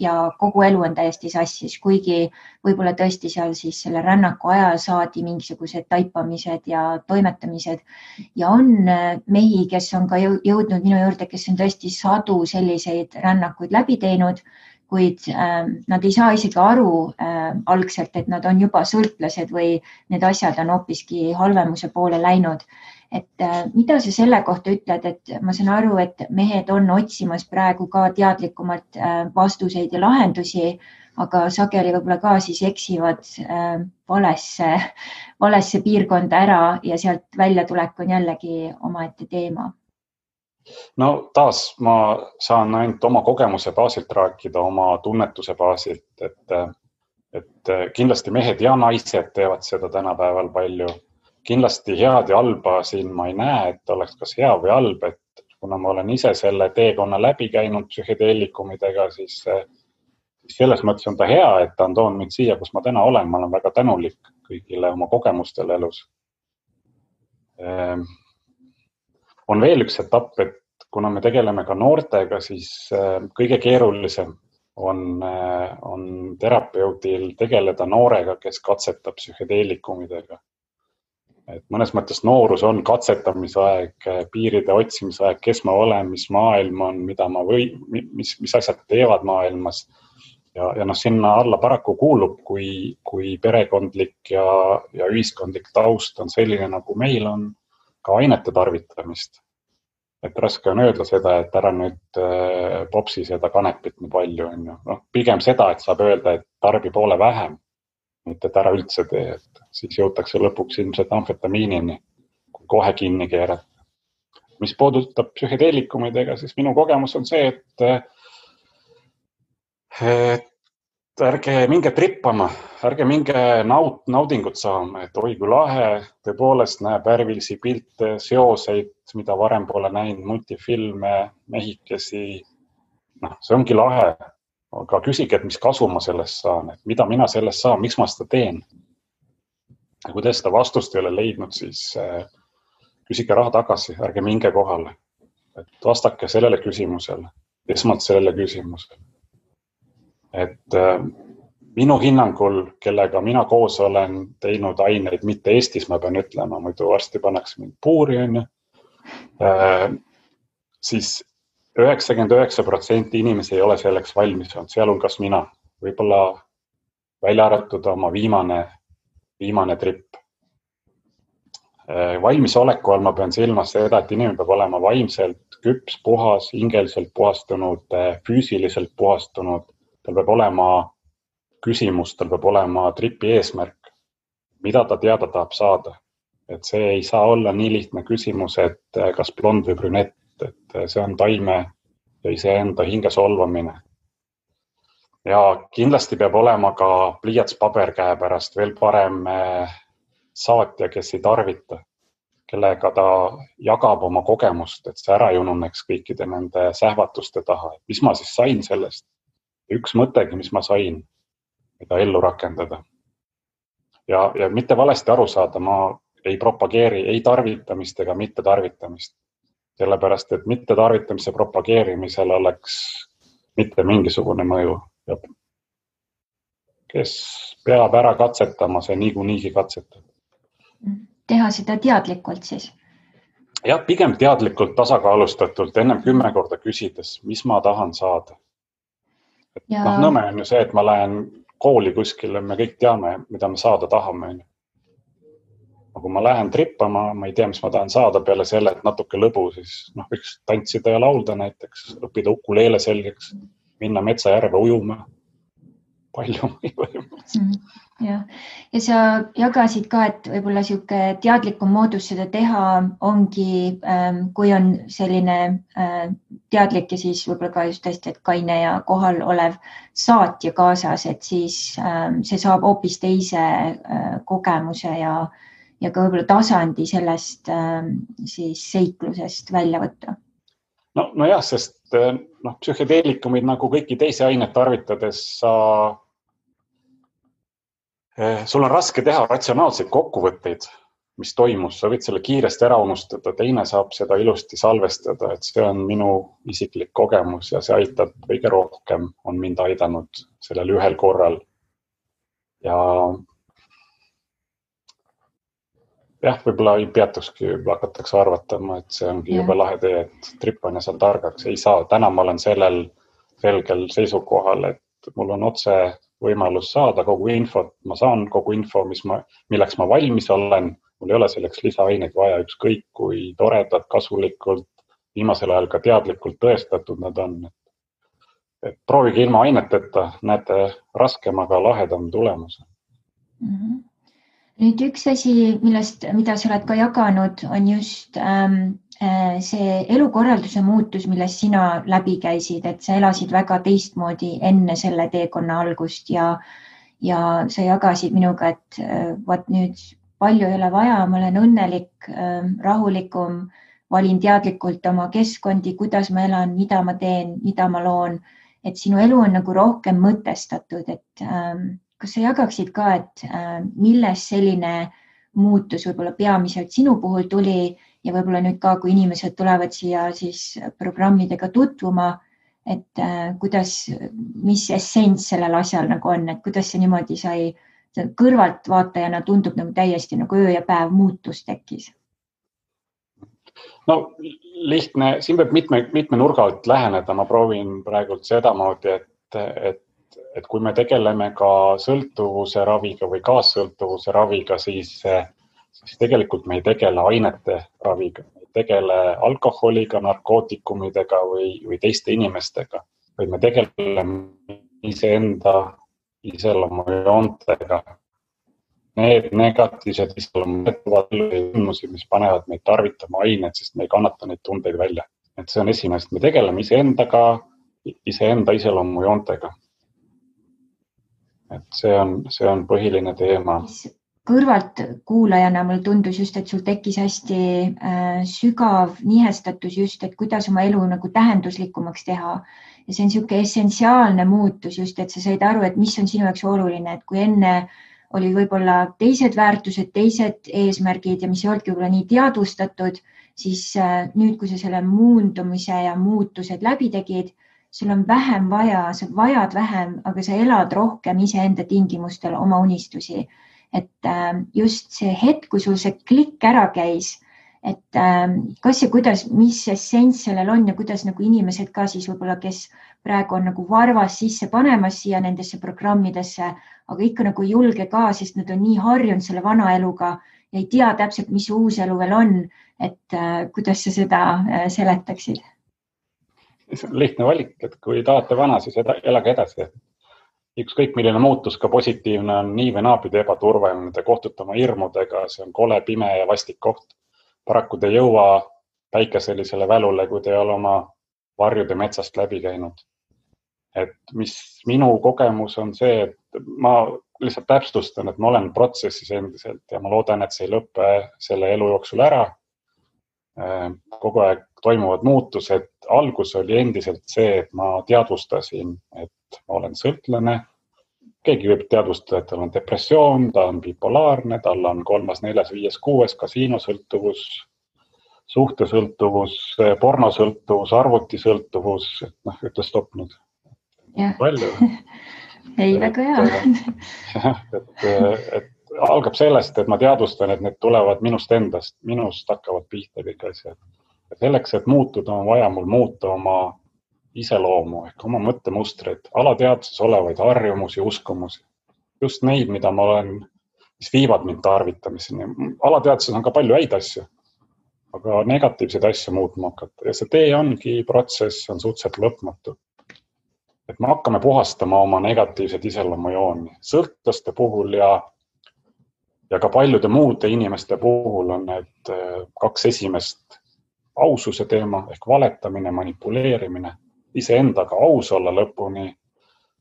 ja kogu elu on täiesti sassis, kuigi võib-olla tõesti seal siis selle rännaku ajal saadi mingisugused taipamised ja toimetamised. Ja on mehi, kes on ka jõudnud minu juurde, kes on tõesti sadu selliseid rännakuid läbi teinud, kuid nad ei saa isegi aru algselt, et nad on juba sõltlased või need asjad on hoopiski halvemuse poole läinud. Et mida sa selle kohta ütled, et ma saan aru, et mehed on otsimas praegu ka teadlikumalt vastuseid ja lahendusi, aga sageli võib-olla ka siis eksivad valesse piirkonda ära ja sealt väljatulek on jällegi omaette teema. No taas ma saan ainult oma kogemuse baasilt rääkida, oma tunnetuse baasilt, et kindlasti mehed ja naised teevad seda tänapäeval palju. Kindlasti head ja halba siin ma ei näe, et oleks kas hea või halb, et kuna ma olen ise selle teekonna läbi käinud psühhedeelikumidega, siis selles mõttes on ta hea, et ta on toonud mind siia, kus ma täna olen. Ma olen väga tänulik kõigile oma kogemustele elus. On veel üks etapp, et kuna me tegeleme ka noortega, siis kõige keerulisem on terapeudil tegeleda noorega, kes katsetab psühhedeelikumidega. Et mõnes mõttes noorus on katsetamise aeg, piiride otsimise aeg, kes ma olen, mis maailm on, mis asjad teevad maailmas. Ja sinna alla paraku kuulub, kui perekondlik ja ühiskondlik taust on selline, nagu meil on, ka ainete tarvitamist. Et raske on öelda seda, et ära nüüd popsi seda kanepit nii palju. Pigem seda, et saab öelda, et tarbi poole vähem. Mitte et ära üldse tee, et siis jõutakse lõpuks ilmselt amfetamiinini, kui kohe kinni keerata. Mis puudutab psühhedeelikumidega, siis minu kogemus on see, et ärge minge trippama, ärge minge naudingut saama, et oi kui lahe, tõepoolest näeb värvilisi pilte, seoseid, mida varem pole näinud, multifilme, mehikesi. See ongi lahe. Aga küsige, et mis kasu ma sellest saan, et mida mina sellest saan, miks ma seda teen. Ja kui te seda vastust ei ole leidnud, siis küsige raha tagasi, ärge minge kohale. Et vastake sellele küsimusele, esmalt sellele küsimusele. Et minu hinnangul, kellega mina koos olen teinud aineid, mitte Eestis, ma pean ütlema, muidu varsti pannakse mind puuri, siis 99% inimesi ei ole selleks valmis olnud, sealhulgas mina. Võib-olla välja arvatud oma viimane tripp. Valmisoleku all ma pean silmas seda, et inimene peab olema vaimselt küps, puhas, hingeliselt puhastunud, füüsiliselt puhastunud. Tal peab olema küsimus, tal peab olema tripi eesmärk, mida ta teada tahab saada. Et see ei saa olla nii lihtne küsimus, et kas blond või brünett. Et see on taime ja iseenda hinge solvamine. Ja kindlasti peab olema ka pliiats paber käepärast, veel parem saatja, kes ei tarvita, kellega ta jagab oma kogemust, et see ära ei ununeks kõikide nende sähvatuste taha. Mis ma siis sain sellest? Üks mõttegi, mis ma sain, mida ellu rakendada. Ja mitte valesti aru saada, ma ei propageeri ei tarvitamist ega mitte tarvitamist. Sellepärast, et mitte tarvitamise propageerimisel oleks mitte mingisugune mõju. Ja kes peab ära katsetama, see niikuinii katsetab. Teha seda teadlikult siis? Ja pigem teadlikult, tasakaalustatult, ennem 10 korda küsides, mis ma tahan saada. Nõme on ju see, et ma lähen kooli kuskile, me kõik teame, mida me saada tahame. Kui ma lähen trippama, ma ei tea, mis ma tahan saada peale selle, et natuke lõbu, siis võiks tantsida ja laulda näiteks, õppida ukuleele selgeks, minna metsajärve ujuma. Palju ja sa jagasid ka, et võib-olla siuke teadlikum moodus seda teha ongi, kui on selline teadlik ja siis võib-olla ka just tõesti, et kaine ja kohal olev saatja kaasas, et siis see saab hoopis teise kogemuse ja ka võib-olla tasandi sellest siis seiklusest välja võtta. No jah, sest psühhedeelikumid nagu kõiki teisi ainet tarvitades sul on raske teha ratsionaalseid kokkuvõtteid, mis toimus. Sa võid selle kiiresti ära unustada, teine saab seda ilusti salvestada, et see on minu isiklik kogemus ja see aitab kõige rohkem, on mind aidanud sellel ühel korral. Ja jah, võib-olla ei peatukski, võib-olla hakatakse arvatama, et see ongi jube lahe tee, et trippan ja saan targaks. Ei saa, täna ma olen sellel selgel seisukohal, et mul on otse võimalus saada kogu infot. Ma saan kogu info, milleks ma valmis olen. Mul ei ole selleks lisaaineid vaja, ükskõik kui toredad, kasulikult, viimasel ajal ka teadlikult tõestatud nad on. Et proovige ilma aineteta, näete raskemaga lahedam tulemus. Nüüd üks asi, mida sa oled ka jaganud, on just see elukorralduse muutus, millest sina läbi käisid, et sa elasid väga teistmoodi enne selle teekonna algust ja sa jagasid minuga, et vaat nüüd palju ei ole vaja, ma olen õnnelik, rahulikum, valin teadlikult oma keskkondi, kuidas ma elan, mida ma teen, mida ma loon, et sinu elu on nagu rohkem mõtestatud, et kas sa jagaksid ka, et milles selline muutus võib-olla peamiselt sinu puhul tuli ja võib-olla nüüd ka, kui inimesed tulevad siia siis programmidega tutvuma, et mis essents sellel asjal nagu on, et kuidas see niimoodi sai kõrvalt vaatajana tundub nagu täiesti nagu öö ja päev muutus tekkis? No lihtne, siin peab mitme nurga alt läheneda. Ma proovin praegult sedamoodi, et kui me tegeleme ka sõltuvuse raviga või kaassõltuvuse raviga, siis tegelikult me ei tegele ainete raviga, me ei tegele alkoholiga, narkootikumidega või teiste inimestega, vaid me tegeleme iseenda iseloomujoontega. Need negatiivsed iseloomujoontega, mis panevad meid tarvitama aineid, sest me ei kannata neid tundeid välja. Et see on esimest, me tegeleme iseenda iseloomujoontega. Et see on põhiline teema. Kõrvalt kuulajana mul tundus just, et sul tekkis hästi sügav nihestatus just, et kuidas oma elu nagu tähenduslikumaks teha. Ja see on niisugune essentsiaalne muutus just, et sa said aru, et mis on sinu jaoks oluline, et kui enne oli võib-olla teised väärtused, teised eesmärgid ja mis ei olnudki võib-olla nii teadvustatud, siis nüüd, kui sa selle muundumise ja muutused läbi tegid, sul on vähem vaja, sa vajad vähem, aga sa elad rohkem iseenda tingimustel oma unistusi. Et just see hetk, kui sul see klikk ära käis, et kas ja kuidas, mis essents sellel on ja kuidas nagu inimesed ka siis võib-olla, kes praegu on nagu varvas sisse panemas siia nendesse programmidesse, aga ikka nagu julge ka, sest nad on nii harjunud selle vana eluga ja ei tea täpselt, mis uus elu veel on, et kuidas sa seda seletaksid? See on lihtne valik, et kui tahate vana, siis elage edasi. Ükskõik milline muutus ka positiivne on nii või naapidi ebaturvaline, te kohtute oma hirmudega, see on kole, pime ja vastik koht. Paraku te ei jõua päikeselisele välule, kui te ei ole oma varjude metsast läbi käinud. Et mis minu kogemus on see, et ma lihtsalt täpsustan, et ma olen protsessis endiselt ja ma loodan, et see ei lõppe selle elu jooksul ära. Kogu aeg toimuvad muutused. Algus oli endiselt see, et ma teadvustasin, et ma olen sõltlane. Keegi võib teadvustada, et tal on depressioon, ta on bipolaarne, tal on 3., 4., 5., 6. kasiinosõltuvus, suhtesõltuvus, pornosõltuvus, arvutisõltuvus, ütle stopp nüüd. Palju. Ei, väga hea. Et algab sellest, et ma teadvustan, et need tulevad minust endast, minust hakkavad pihta kõik asjad. Selleks, et muutuda, on vaja mul muuta oma iseloomu ehk oma mõttemustreid, alateadvuses olevaid harjumusi, uskumusi. Just neid, mida ma olen, mis viivad mind tarvitamiseni. Alateadvuses on ka palju häid asju, aga negatiivseid asju muutma hakata. Ja see tee ongi protsess, on suhteliselt lõpmatu. Et me hakkame puhastama oma negatiivsed iseloomujooni. Sõltlaste puhul ja ka paljude muude inimeste puhul on need 2 esimest aususe teema ehk valetamine, manipuleerimine, iseendaga aus olla lõpuni.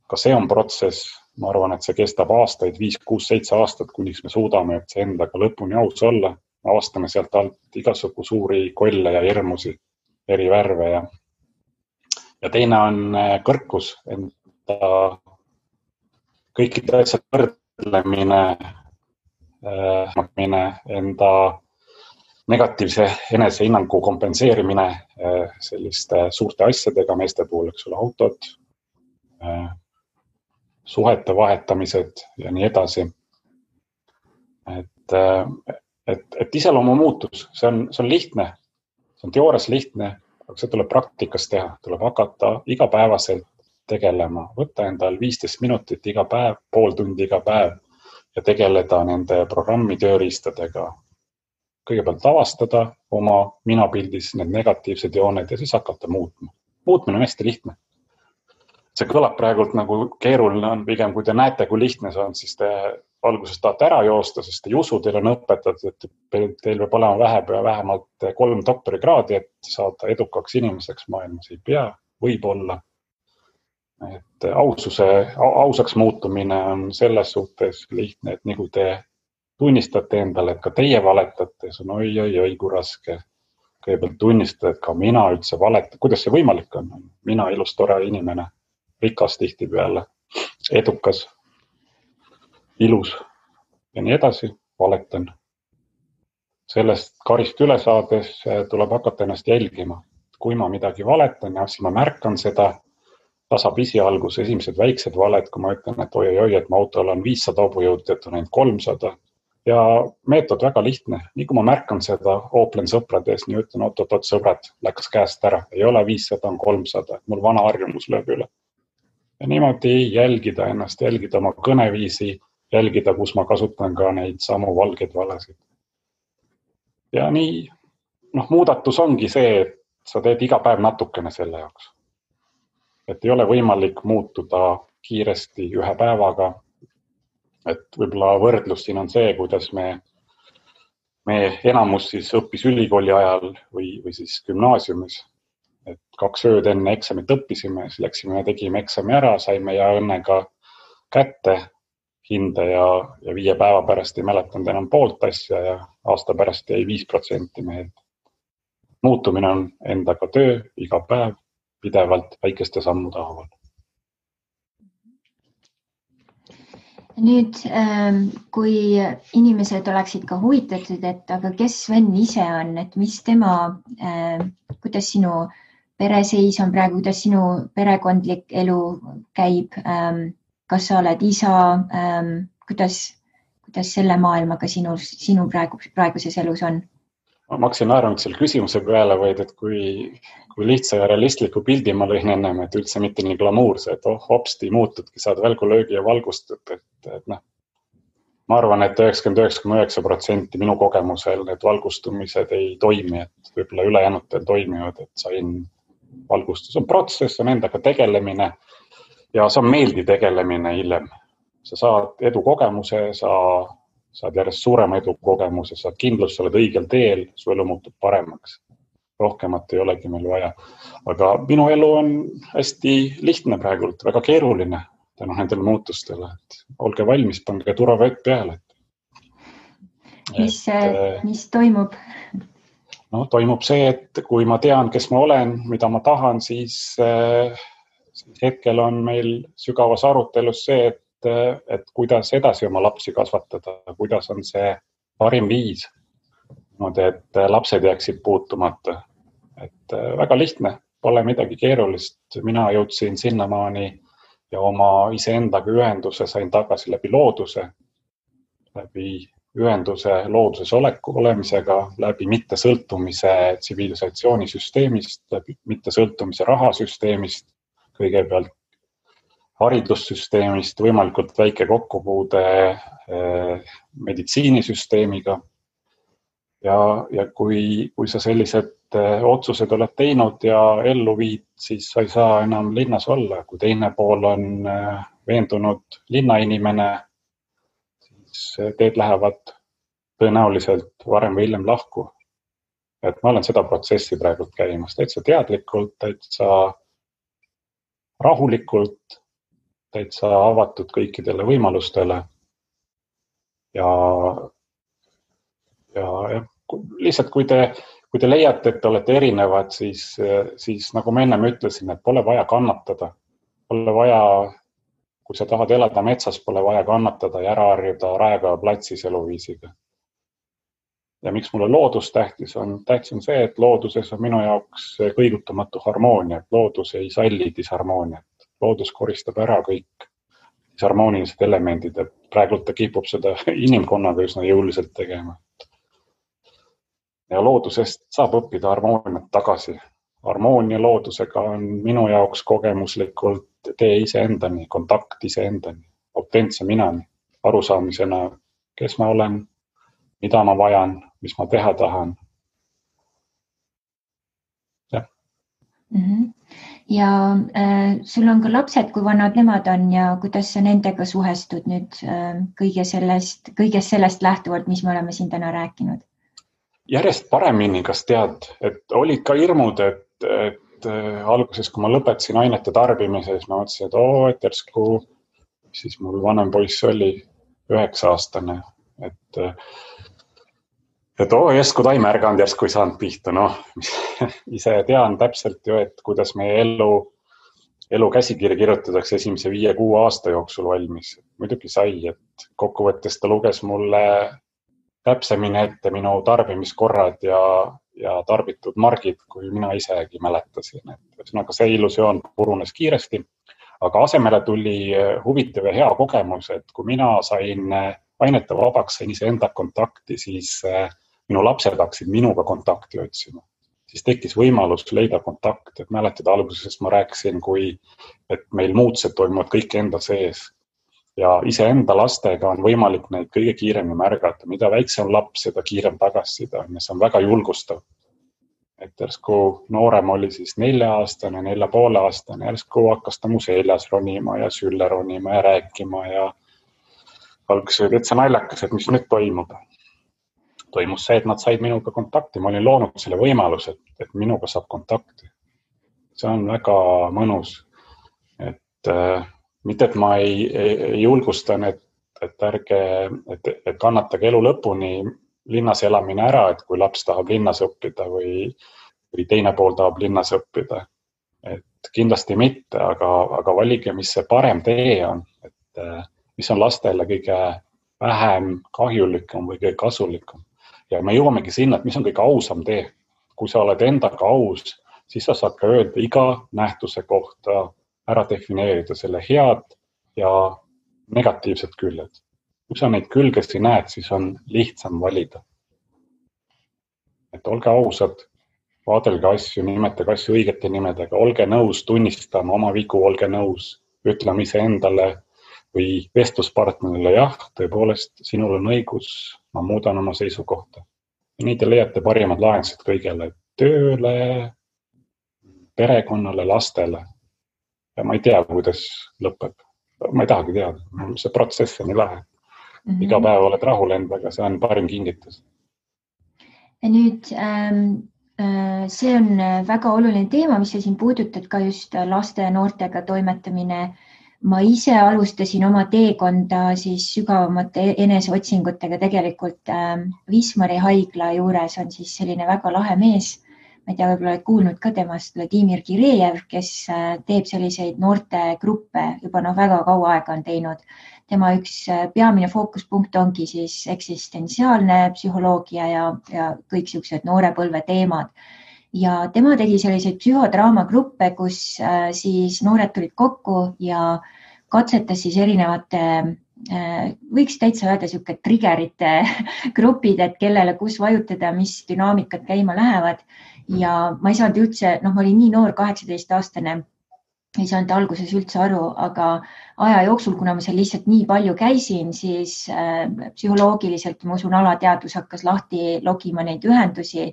Ka see on protsess. Ma arvan, et see kestab aastaid, 5, 6, 7 aastat, kuniks me suudame üldse endaga lõpuni aus olla. Avastame sealt alt igasugu suuri kolle ja hirmusi, eri värve ja teine on kõrkus, enda kõikide asjad võrdlemine, enda negatiivse enesehinnangu kompenseerimine selliste suurte asjadega, meeste puhul, eks ole, autod, suhete vahetamised ja nii edasi. Et iseloomu muutus, see on lihtne, see on teoorias lihtne, aga see tuleb praktikas teha, tuleb hakata igapäevaselt tegelema, võtta endal 15 minutit iga päev, pool tundi iga päev ja tegeleda nende programmi tööriistadega. Kõigepealt avastada oma minapildis need negatiivsed jooned ja siis hakata muutma. Muutmine on hästi lihtne. See kõlab praegult nagu keeruline on, pigem kui te näete, kui lihtne see on, siis te alguses tahate ära joosta, sest te ei usu, teil on õpetatud, et teil peab olema vähemalt 3 doktorikraadi, et saada edukaks inimeseks maailmas. Ei pea, võib olla. Et ausaks muutumine on selles suhtes lihtne, et nagu te tunnistate endale, et ka teie valetate, see on oi, kui raske. Kõigepealt tunnistada, et ka mina üldse valetan. Kuidas see võimalik on? Mina ilus, tore inimene, rikas tihti peale, edukas, ilus ja nii edasi, valetan. Sellest karist üle saades tuleb hakata ennast jälgima. Kui ma midagi valetan ja siis ma märkan seda, tasapisi algus, esimesed väiksed valed, kui ma ütlen, et oi, et mu autol on 500 hobujõud, et on ainult 300. Ja meetod väga lihtne. Nii kui ma märkan seda, ooplen sõprades, nii ütlen, oot, sõbrad, läks käest ära. Ei ole 500, on 300. Mul vana harjumus lööb üle. Ja niimoodi jälgida ennast, jälgida oma kõneviisi, jälgida, kus ma kasutan ka neid samu valgeid valesid. Ja nii, muudatus ongi see, et sa teed iga päev natukene selle jaoks. Et ei ole võimalik muutuda kiiresti ühe päevaga. Et võib-olla võrdlus siin on see, kuidas me enamus siis õppis ülikooli ajal või siis gümnaasiumis. Et 2 ööd enne eksamit õppisime, siis läksime ja tegime eksami ära, saime ja õnnega kätte hinde ja 5 päeva pärast ei mäletanud enam poolt asja ja aasta pärast jäi 5% meelde. Muutumine on endaga töö iga päev, pidevalt väikeste sammude haaval. Nüüd, kui inimesed oleksid ka huvitatud, et aga kes Sven ise on, et mis tema, kuidas sinu pereseis on praegu, kuidas sinu perekondlik elu käib, kas sa oled isa, kuidas selle maailmaga sinu praeguses elus on? Ma hakkasin naeranud selle küsimuse peale, vaid et kui lihtsa ja realistliku pildi ma lõin ennem, et üldse mitte nii glamuurse, et hopsti muutudki, saad välgulöögi ja valgustad. Ma arvan, et 99,9% minu kogemusel need valgustumised ei toimi, et võib-olla ülejäänutel toimivad, et sain valgustus. On protsess, on endaga tegelemine ja see on meeldi tegelemine hiljem. Sa saad edukogemuse, saad järjest suurema edukogemuse, saad kindlust, sa oled õigel teel, su elu muutub paremaks. rohkemat ei olegi meil vaja. Aga minu elu on hästi lihtne praegult, väga keeruline tänu nendele muutustele. Et olge valmis, pange turvavett peale. Mis toimub? No, toimub see, et kui ma tean, kes ma olen, mida ma tahan, siis hetkel on meil sügavas arutelus see, et kuidas edasi oma lapsi kasvatada, kuidas on see parim viis, et lapsed jääksid puutumata. Et väga lihtne, pole midagi keerulist. Mina jõudsin sinnamaani ja oma iseendaga ühenduse sain tagasi läbi looduse, läbi ühenduse looduses olemisega, läbi mittesõltumise tsivilisatsioonisüsteemist, läbi mittesõltumise rahasüsteemist, kõigepealt haridussüsteemist, võimalikult väike kokkupuude meditsiinisüsteemiga. Ja kui sa sellised otsused oled teinud ja ellu viid, siis sa ei saa enam linnas olla. Kui teine pool on veendunud linnainimene, siis teed lähevad tõenäoliselt varem või hiljem lahku. Et ma olen seda protsessi praegult käimas, täitsa teadlikult, täitsa rahulikult, täitsa avatud kõikidele võimalustele ja lihtsalt kui te leiate, et te olete erinevad, siis nagu ma ennem ütlesin, et pole vaja kannatada. Pole vaja, kui sa tahad elada metsas, pole vaja kannatada ja ära harjuda Raekoja platsis eluviisiga. Ja miks mulle loodus tähtis on see, et looduses on minu jaoks kõigutamatu harmoonia. Loodus ei salli disharmooniat. Loodus koristab ära kõik disharmoonilised elemendid ja praegult ta kipub seda inimkonnaga üsna jõuliselt tegema. Ja loodusest saab õppida harmooniat tagasi. Harmoonia loodusega on minu jaoks kogemuslikult tee iseendani, kontakt iseendani, autentse minani, arusaamisena, kes ma olen, mida ma vajan, mis ma teha tahan. Ja sul on ka lapsed, kui vanad nemad on ja kuidas sa nendega suhestud nüüd kõigest sellest lähtuvalt, mis me oleme siin täna rääkinud? Järjest paremini, kas tead, et olid ka hirmud, et alguses, kui ma lõpetasin ainete tarbimise, siis ma mõtlesin, et järsku, siis mul vanem poiss oli 9-aastane, et järsku ta ei märganud, järsku ei saanud pihta. Ise tean täpselt ju, et kuidas meie elu käsikirja kirjutatakse esimese 5-6 aasta jooksul valmis. Muidugi sai, et kokkuvõttes ta luges mulle täpsemini ette minu tarbimiskorrad ja tarbitud margid, kui mina isegi mäletasin. Ühesõnaga see illusioon purunes kiiresti, aga asemele tuli huvitav ja hea kogemus, et kui mina sain ainete vabaks, sain iseenda kontakti, siis minu lapsed hakkasid minuga kontakti otsima. Siis tekkis võimalus leida kontakt, et mäletada alguses ma rääkisin, et meil muutused toimuvad kõik enda sees. Ja iseenda lastega on võimalik neid kõige kiiremini märgata. Mida väiksem laps, seda kiirem tagasisida. See on väga julgustav. Et järsku noorem oli siis 4-aastane, 4,5-aastane. Järsku hakkas ta mu seljas ronima ja sülle ronima ja rääkima ja alguses oli täitsa naljakas, et mis nüüd toimub. Toimus see, et nad said minuga kontakti. Ma olin loonud selle võimaluse, et minuga saab kontakti. See on väga mõnus. Mitte, et ma ei julgustan, et kannatage elu lõpuni linnas elamine ära, et kui laps tahab linnas õppida või teine pool tahab linnas õppida. Et kindlasti mitte, aga valige, mis see parem tee on, et mis on lastele kõige vähem kahjulikum või kõige kasulikum. Ja me jõuamegi sinna, et mis on kõige ausam tee. Kui sa oled endaga aus, siis sa saad ka öelda iga nähtuse kohta, ära defineerida selle head ja negatiivsed küljed. Kui sa neid külgesi näed, siis on lihtsam valida. Et olge ausad, vaadelge asju, nimetage asju õigete nimedega, olge nõus tunnistama oma vigu, olge nõus ütlema iseendale või vestluspartnerile, jah, tõepoolest, sinul on õigus, ma muudan oma seisukohta. Ja nii te leiate parimad lahendused kõigele, tööle, perekonnale, lastele. Ja ma ei tea, kuidas lõpeb. Ma ei tahagi teada. See protsess on nii lahe. Iga päev oled rahul endaga, see on parim kingitus. Ja nüüd See on väga oluline teema, mis sa siin puudutad, ka just laste ja noortega toimetamine. Ma ise alustasin oma teekonda siis sügavamate eneseotsingutega tegelikult Wismari haigla juures on siis selline väga lahe mees. Ma ei tea, võib-olla oled kuulnud ka temast, Vladimir Kirejev, kes teeb selliseid noortegruppe juba väga kaua aega on teinud. Tema üks peamine fookuspunkt ongi siis eksistentsiaalne psühholoogia ja kõik sellised noorepõlve teemad. Ja tema tegi selliseid psühhodraamagruppe, kus siis noored tulid kokku ja katsetas siis erinevate, võiks täitsa öelda selline triggerite grupid, et kellele kus vajutada, mis dünaamikad käima lähevad. Ja ma ei saanud üldse, ma olin nii noor, 18-aastane, ei saanud alguses üldse aru, aga aja jooksul, kuna ma seal lihtsalt nii palju käisin, siis psühholoogiliselt, ma usun, alateadvus hakkas lahti logima neid ühendusi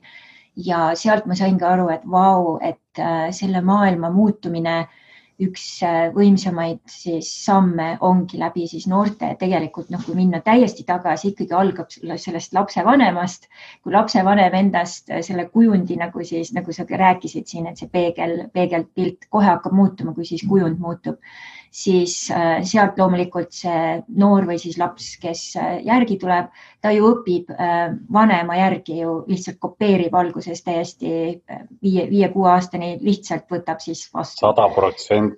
ja sealt ma saingi aru, et vau, et selle maailma muutumine üks võimsamaid siis samme ongi läbi siis noorte. Tegelikult, kui minna täiesti tagasi, ikkagi algab sellest lapsevanemast, kui lapsevanem endast selle kujundi, nagu sa rääkisid siin, et see peegelpilt kohe hakkab muutuma, kui siis kujund muutub, siis sealt loomulikult see noor või siis laps, kes järgi tuleb, ta ju õpib vanema järgi ju lihtsalt kopeerib alguses täiesti 5-6 aastani lihtsalt võtab siis vastu. 100%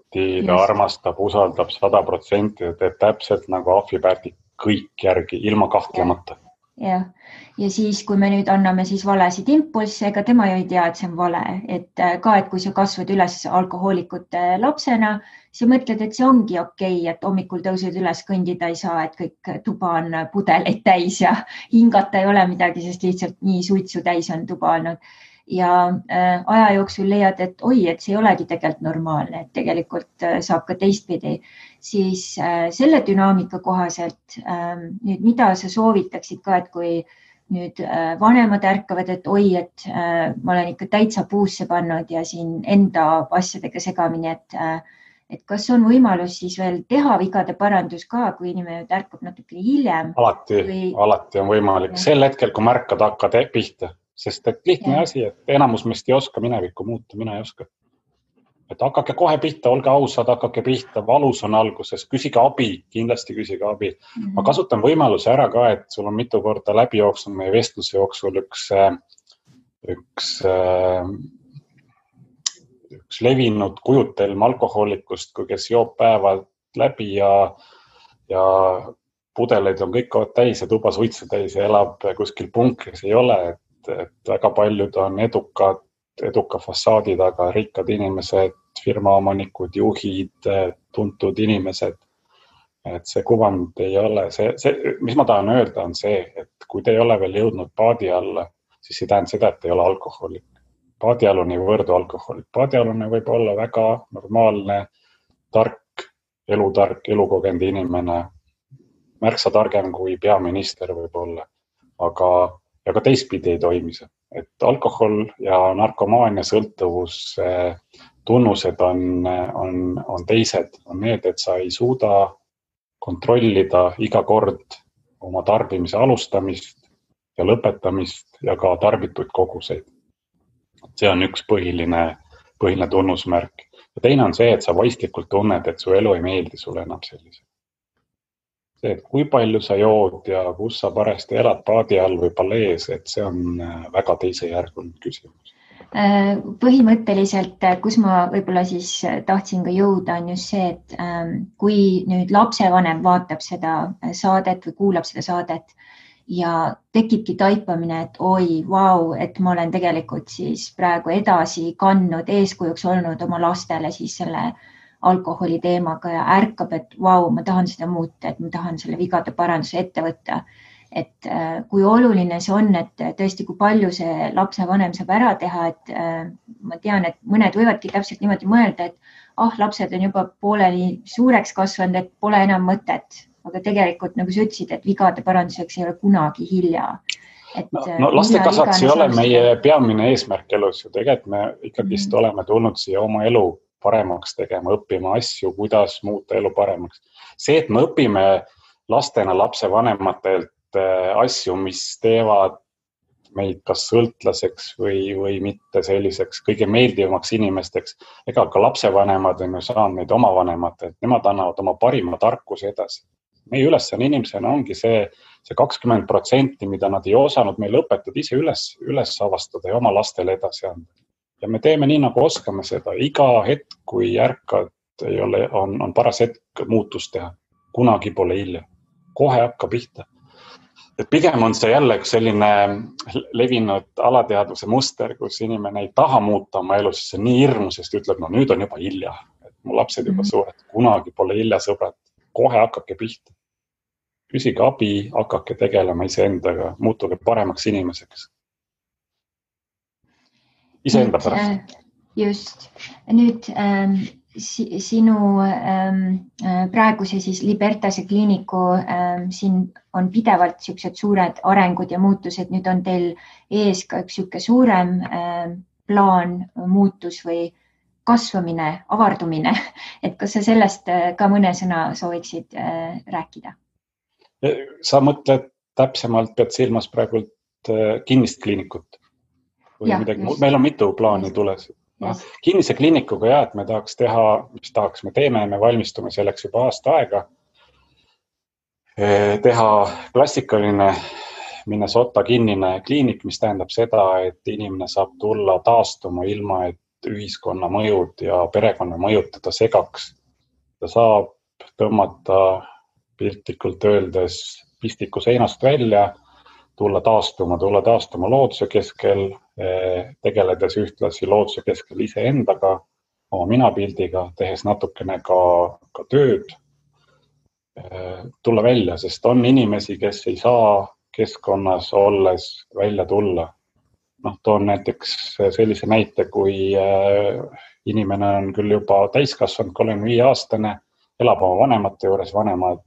ta armastab, usaldab 100% ja teeb täpselt nagu ahvipärdik kõik järgi, ilma kahtlemata. Ja siis, kui me nüüd anname siis valesid impulsse, ega tema ju ei tea, et see on vale, et kui sa kasvad üles alkohoolikute lapsena, sa mõtled, et see ongi okei, et hommikul tõused üles, kõndida ei saa, et kõik tuba on pudeleid täis ja hingata ei ole midagi, sest lihtsalt nii suitsu täis on tuba olnud. Ja aja jooksul leiad, et et see ei olegi tegelikult normaalne, et tegelikult saab ka teistpidi. Siis selle dünaamika kohaselt nüüd, mida sa soovitaksid ka, et kui nüüd vanemad ärkavad, et et ma olen ikka täitsa puusse pannud ja siin enda asjadega segamini, et kas on võimalus siis veel teha vigade parandus ka, kui inimene ärkab natuke hiljem? Alati on võimalik. Sel hetkel, kui märkad, hakkad pihta, sest et lihtne asi, et enamus meist ei oska minevikku muuta, mina ei oska. Et hakake kohe pihta, olge ausad, hakake pihta, valus on alguses, küsige abi, kindlasti küsige abi. Ma kasutan võimaluse ära ka, et sul on mitu korda läbi jooksnud meie vestluse jooksul üks levinud kujutelm alkohoolikust, kui kes joob päevad läbi ja pudeleid on kõik täis ja tuba suitsu täis ja elab kuskil punkris, ei ole, et väga paljud on eduka fassaadi taga, rikkad inimesed, firmaomanikud, juhid, tuntud inimesed. Et see kuvand ei ole, mis ma tahan öelda on see, et kui te ei ole veel jõudnud paadi alla, siis ei tähenda seda, et ei ole alkohoolik. Paadialune ei võrdu alkohoolik. Paadialune võib olla väga normaalne, tark, elukogenud inimene, märksa targem kui peaminister võib olla, aga ka teistpidi ei toimi see. Et alkohol ja narkomaania sõltuvus tunnused on teised, on need, et sa ei suuda kontrollida iga kord oma tarbimise alustamist ja lõpetamist ja ka tarbituid koguseid. See on üks põhiline tunnusmärk. Ja teine on see, et sa vaistlikult tunned, et su elu ei meeldi sulle enam sellise. See, et kui palju sa jood ja kus sa parasti elad paadi all või palees, et see on väga teisejärguline küsimus. Põhimõtteliselt, kus ma võib-olla siis tahtsin ka jõuda, on just see, et kui nüüd lapsevanem vaatab seda saadet või kuulab seda saadet ja tekibki taipamine, et vau, et ma olen tegelikult siis praegu edasi kandnud, eeskujuks olnud oma lastele siis selle alkoholi teemaga ja ärkab, et vau, ma tahan seda muuta, et ma tahan selle vigade paranduse ette võtta. Et kui oluline see on, et tõesti, kui palju see lapsevanem saab ära teha, et ma tean, et mõned võivadki täpselt niimoodi mõelda, et lapsed on juba pooleli suureks kasvanud, et pole enam mõtet. Aga tegelikult, nagu sa ütlesid, et vigade paranduseks ei ole kunagi hilja. Laste kasvatus ei ole meie peamine eesmärk elus ju. Tegelikult me ikkagist oleme tulnud siia oma elu paremaks tegema, õppima asju, kuidas muuta elu paremaks. See, et me õpime lastena lapsevanematelt asju, mis teevad meid kas sõltlaseks või mitte selliseks kõige meeldivamaks inimesteks. Ega ka lapsevanemad on ju saanud meid oma vanemad, et nemad annavad oma parima tarkuse edasi. Meie ülesanne inimesena ongi see 20%, mida nad ei osanud meil õpetada ise üles avastada ja oma lastele edasi anda. Ja me teeme nii, nagu oskame seda. Iga hetk, kui ärkad, on paras hetk muutust teha. Kunagi pole hilja. Kohe hakka pihta. Et pigem on see jälle üks selline levinud alateadvuse muster, kus inimene ei taha muuta oma elu, siis see on nii hirmus, sest ütleb, no nüüd on juba hilja. Et mu lapsed juba suured. Kunagi pole hilja, sõbrad. Kohe hakkake pihta. Küsige abi, hakake tegelema iseendaga, muutuge paremaks inimeseks. Iseenda pärast. Just. Nüüd sinu praeguse siis Libertase kliiniku siin on pidevalt siuksed suured arengud ja muutused. Nüüd on teil ees ka üks siuke suurem plaan, muutus või kasvamine, avardumine. Et kas sa sellest ka mõne sõna sooviksid rääkida? Sa mõtled täpsemalt, pead silmas praegult kinnist kliinikut? Või midagi? Meil on mitu plaani tules. Kinnise kliinikuga et me tahaks teha, me teeme, me valmistume selleks juba aasta aega. Teha klassikaline Minnesota kinnine kliinik, mis tähendab seda, et inimene saab tulla taastuma ilma, et ühiskonna mõjud ja perekonna mõjud teda segaks. Ta saab tõmmata piltlikult öeldes pistiku seinast välja, tulla taastuma looduse keskel, tegeledes ühtlasi looduse keskel iseendaga, oma minapildiga, tehes natukene ka tööd, tulla välja, sest on inimesi, kes ei saa keskkonnas olles välja tulla. Toon näiteks sellise näite, kui inimene on küll juba täiskasvanud, 35-aastane, elab oma vanemate juures, vanemad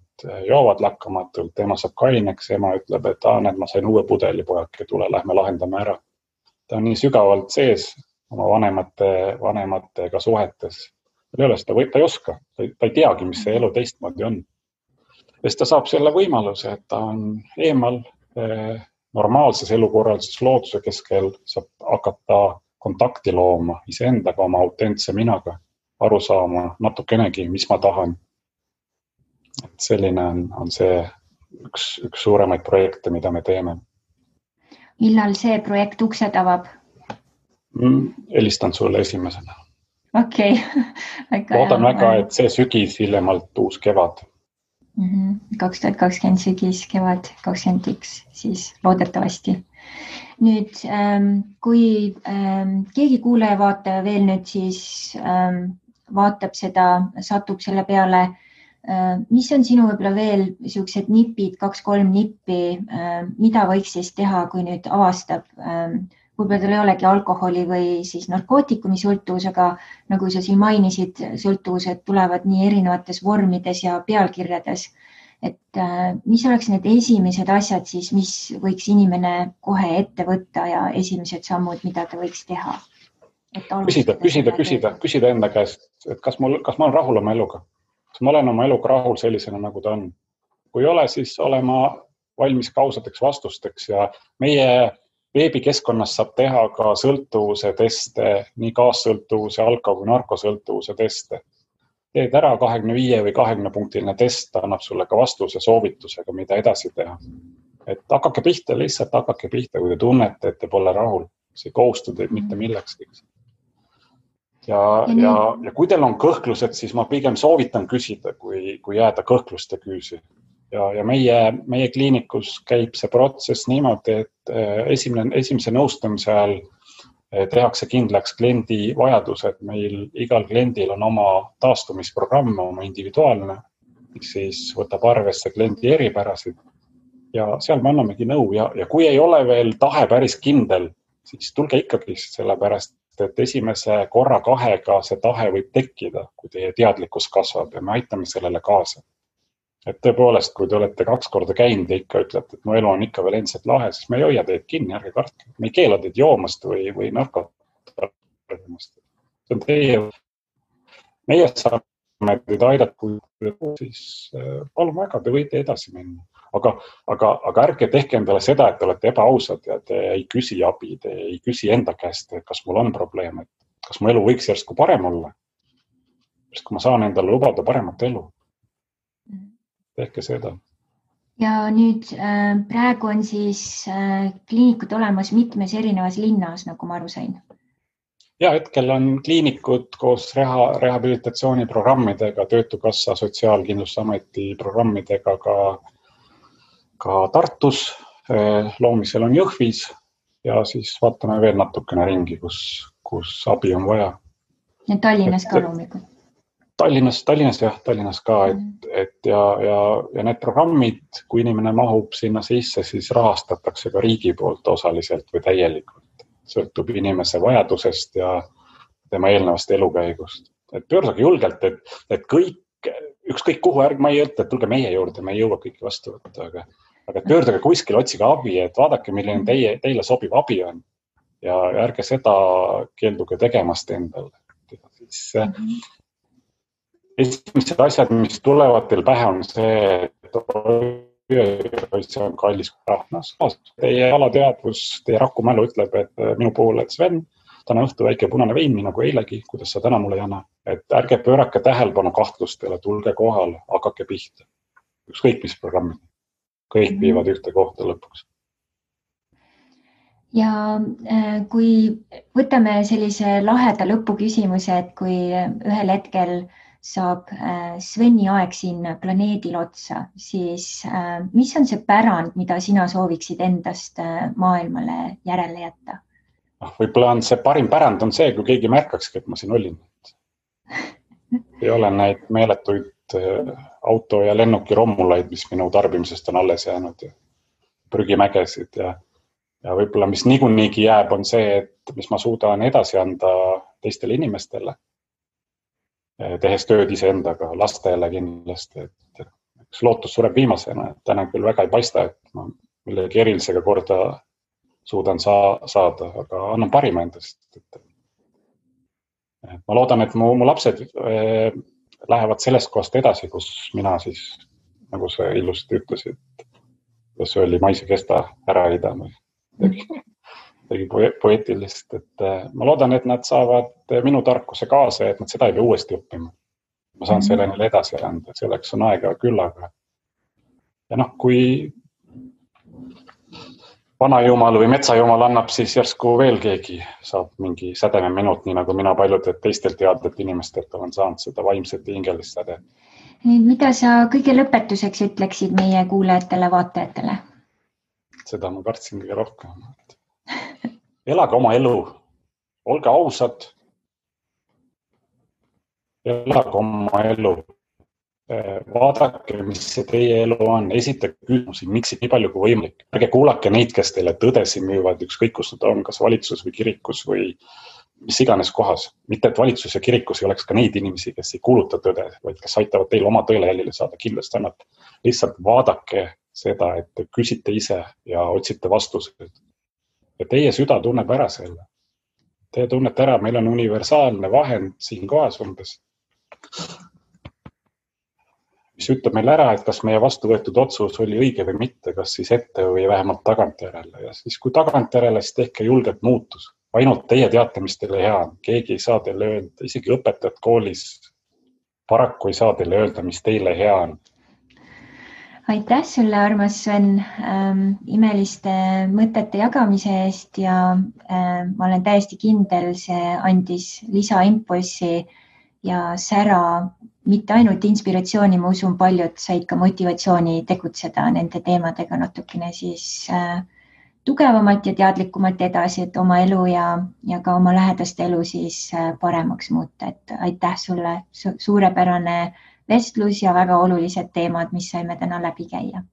joovad lakkamatult, tema saab kaineks, ema ütleb, et ma sain uue pudeli, pojake, tule, lähme lahendame ära. Ta on nii sügavalt sees oma vanematega suhetes. Ta ei oska, ta ei teagi, mis see elu teistmoodi on. Sest ta saab selle võimaluse, et ta on eemal normaalses elukorralduses looduse keskel, saab hakata kontakti looma iseendaga, oma autentse minaga, aru saama natukenegi, mis ma tahan. Et selline on see üks suuremaid projekte, mida me teeme. Millal see projekt uksed avab? Helistan sulle esimesena. Okei. Loodan väga, et see sügis hiljemalt uus kevad. 2020 sügis, kevad 21, siis loodetavasti. Nüüd, kui keegi kuulaja vaataja veel nüüd siis vaatab seda, satub selle peale, mis on sinu võib-olla veel siuksed nipid, 2-3 nippi, mida võiks siis teha, kui nüüd avastab, võib-olla tal ei olegi alkoholi või siis narkootikumi sõltuvus, aga nagu sa siin mainisid, sõltuvused tulevad nii erinevates vormides ja pealkirjades. Et mis oleks need esimesed asjad siis, mis võiks inimene kohe ette võtta ja esimesed sammud, mida ta võiks teha? Küsida enda käest, et kas ma olen rahul oma eluga? Kas ma olen oma eluga rahul sellisena, nagu ta on? Kui ei ole, siis olema valmis kausateks vastusteks ja meie veebikeskkonnas saab teha ka sõltuvuse teste, nii kaassõltuvuse, alko- või narkosõltuvuse teste. Teed ära 25 või 20 punktiline test, annab sulle ka vastuse soovitusega, mida edasi teha. Et hakake pihta, lihtsalt hakake pihta, kui te tunnete, et te pole rahul. See ei kohustu teid mitte milleks. Ja kui teil on kõhklused, siis ma pigem soovitan küsida, kui jääda kõhkluste küüsi. Ja meie kliinikus käib see protsess niimoodi, et esimese nõustamise ajal tehakse kindlaks kliendi vajadused. Meil igal kliendil on oma taastumisprogramm, oma individuaalne, mis siis võtab arvesse kliendi eripärasid. Ja seal me annamegi nõu ja kui ei ole veel tahe päris kindel, siis tulge ikkagi sellepärast, et esimese korra 2-ga see tahe võib tekkida, kui teie teadlikkus kasvab ja me aitame sellele kaasa. Et tõepoolest, kui te olete 2 korda käinud ja ikka ütlete, et mu elu on ikka veel endiselt lahe, siis me ei hoia teid kinni, ärge kartke. Me ei keela teid joomast või narkotarvimast. See on teie. Meie saame teid aidata, kui siis palun väga, te võite edasi minna. aga ärge tehke endale seda, et te olete ebaausad ja te ei küsi abi, te ei küsi enda käest, et kas mul on probleem, et kas mu elu võiks järsku parem olla. Sest kui ma saan endale lubada paremat elu, tehke seda. Ja nüüd praegu on siis kliinikud olemas mitmes erinevas linnas, nagu ma aru sain. Ja hetkel on kliinikud koos rehabilitatsiooniprogrammidega, Töötukassa, Sotsiaalkindlustusameti programmidega ka Tartus, loomisel on Jõhvis ja siis vaatame veel natukene ringi, kus abi on vaja. Ja Tallinnas ka loomikud. Tallinnas ka, ja need programmid, kui inimene mahub sinna sisse, siis rahastatakse ka riigi poolt osaliselt või täielikult. Sõltub inimese vajadusest ja tema eelnevast elukäigust. Et pöörduge julgelt, et kõik, ükskõik kuhu ma ei ütle, et tulge meie juurde, me ei jõua kõiki vastu võtta, aga pöörduge kuskil, otsige abi, et vaadake, milline teile sobiv abi on ja ärge seda keelduge tegemast endale. Esimesed asjad, mis tulevad teil pähe, on see, et see on kallis rahnas. Teie alateadvus, teie rakumälu ütleb, et minu poole, et Sven, täna õhtu väike punane vein, nagu eilegi, kuidas sa täna mulle ei anna. Et ärge pöörake tähelepanu kahtlustele, tulge kohale, hakake pihta. Ükskõik mis programmid. Kõik viivad ühte kohta lõpuks. Ja kui võtame sellise laheda lõpuküsimuse, et kui ühel hetkel saab Sveni aeg siin planeedil otsa, siis mis on see pärand, mida sina sooviksid endast maailmale järele jätta? Võib-olla on see parim pärand on see, kui keegi märkakski, et ma siin olin. Ei ole neid meeletuid auto- ja lennuki rommulaid, mis minu tarbimisest on alles jäänud ja prügimägesid ja võib-olla mis niigi jääb, on see, et mis ma suudan edasi anda teistele inimestele. Tehes tööd iseendaga, lastele kindlasti, et üks lootus sureb viimasena, et täna küll väga ei paista, et ma millegi erilisega korda suudan saada, aga annan parima endast. Ma loodan, et mu lapsed lähevad sellest kohast edasi, kus mina siis, nagu sa ilusti ütlesid, kus oli maise kesta ära idama. Tegi poeetilist, et ma loodan, et nad saavad minu tarkuse kaasa, et nad seda ei pea uuesti õppima. Ma saan selle neile edasi anda, et selleks on aega küllaga. Ja kui vanajumal või metsajumal annab, siis järsku veel keegi saab mingi sädeme minut, nii nagu mina paljud teistel teadlet inimestelt olen saanud seda vaimset ja hingelist säde. Mida sa kõige lõpetuseks ütleksid meie kuulajatele, vaatajatele? Seda ma kartsin kõige rohkem. Elage oma elu, olge ausad, elage oma elu, vaadake, mis see teie elu on, esitage küsimusi, miks nii palju kui võimalik. Ärge kuulake neid, kes teile tõdesi müüvad, ükskõik kus nad on, kas valitsus või kirikus või mis iganes kohas. Mitte, et valitsus ja kirikus ei oleks ka neid inimesi, kes ei kuuluta tõde, vaid kes aitavad teil oma tõele jälile saada, kindlasti annab. Lihtsalt vaadake seda, et te küsite ise ja otsite vastused. Ja teie süda tunneb ära selle. Teie tunnete ära, meil on universaalne vahend siin kohas umbes, mis ütleb meil ära, et kas meie vastu võetud otsus oli õige või mitte, kas siis ette või vähemalt tagantjärele. Ja siis kui tagantjärele, siis tehke julgelt muutus. Ainult teie teate, mis teile hea on. Keegi ei saa teile öelda, isegi õpetajad koolis paraku ei saa teile öelda, mis teile hea on. Aitäh sulle, armas Sven, imeliste mõtete jagamise eest ja ma olen täiesti kindel, see andis lisaimpulsi ja sära, mitte ainult inspiratsiooni, ma usun paljud said ka motivatsiooni tegutseda nende teemadega natukene siis tugevamalt ja teadlikumalt edasi, et oma elu ja ka oma lähedaste elu siis paremaks muuta. Et aitäh sulle, suurepärane vestlus ja väga olulised teemad, mis saime täna läbi käia.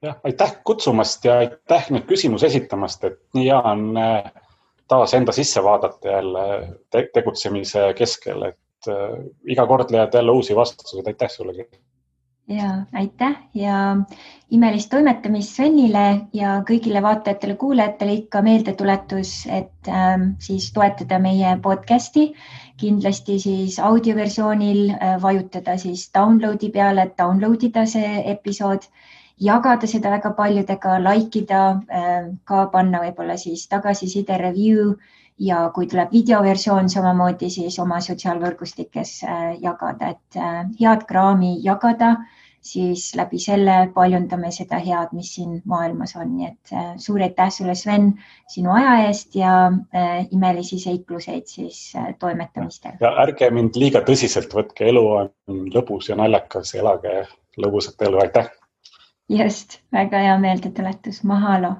Ja, aitäh kutsumast ja aitäh nüüd küsimus esitamast, et nii hea on taas enda sisse vaadata jälle tegutsemise keskel, et iga kord leiad jälle uusi vastused. Aitäh sulle. Ja aitäh ja imelist toimetamist Svenile ja kõigile vaatajatele, kuulajatele ikka meeldetuletus, et siis toetada meie podcasti. Kindlasti siis audioversioonil vajutada siis downloadi peale, et downloadida see episood jagada seda väga paljudega, likeida, ka panna võib-olla siis tagasiside review ja kui tuleb videoversioon samamoodi, siis oma sotsiaalvõrgustikes jagada, et head kraami jagada, siis läbi selle paljundame seda head, mis siin maailmas on. Nii et suur aitäh sulle, Sven, sinu aja eest ja imelisi seikluseid siis toimetamistel. Ja ärge mind liiga tõsiselt võtke, elu on lõbus ja naljakas, elage lõbusat elu, aitäh! Just, väga hea meeldetuletus, mahalo!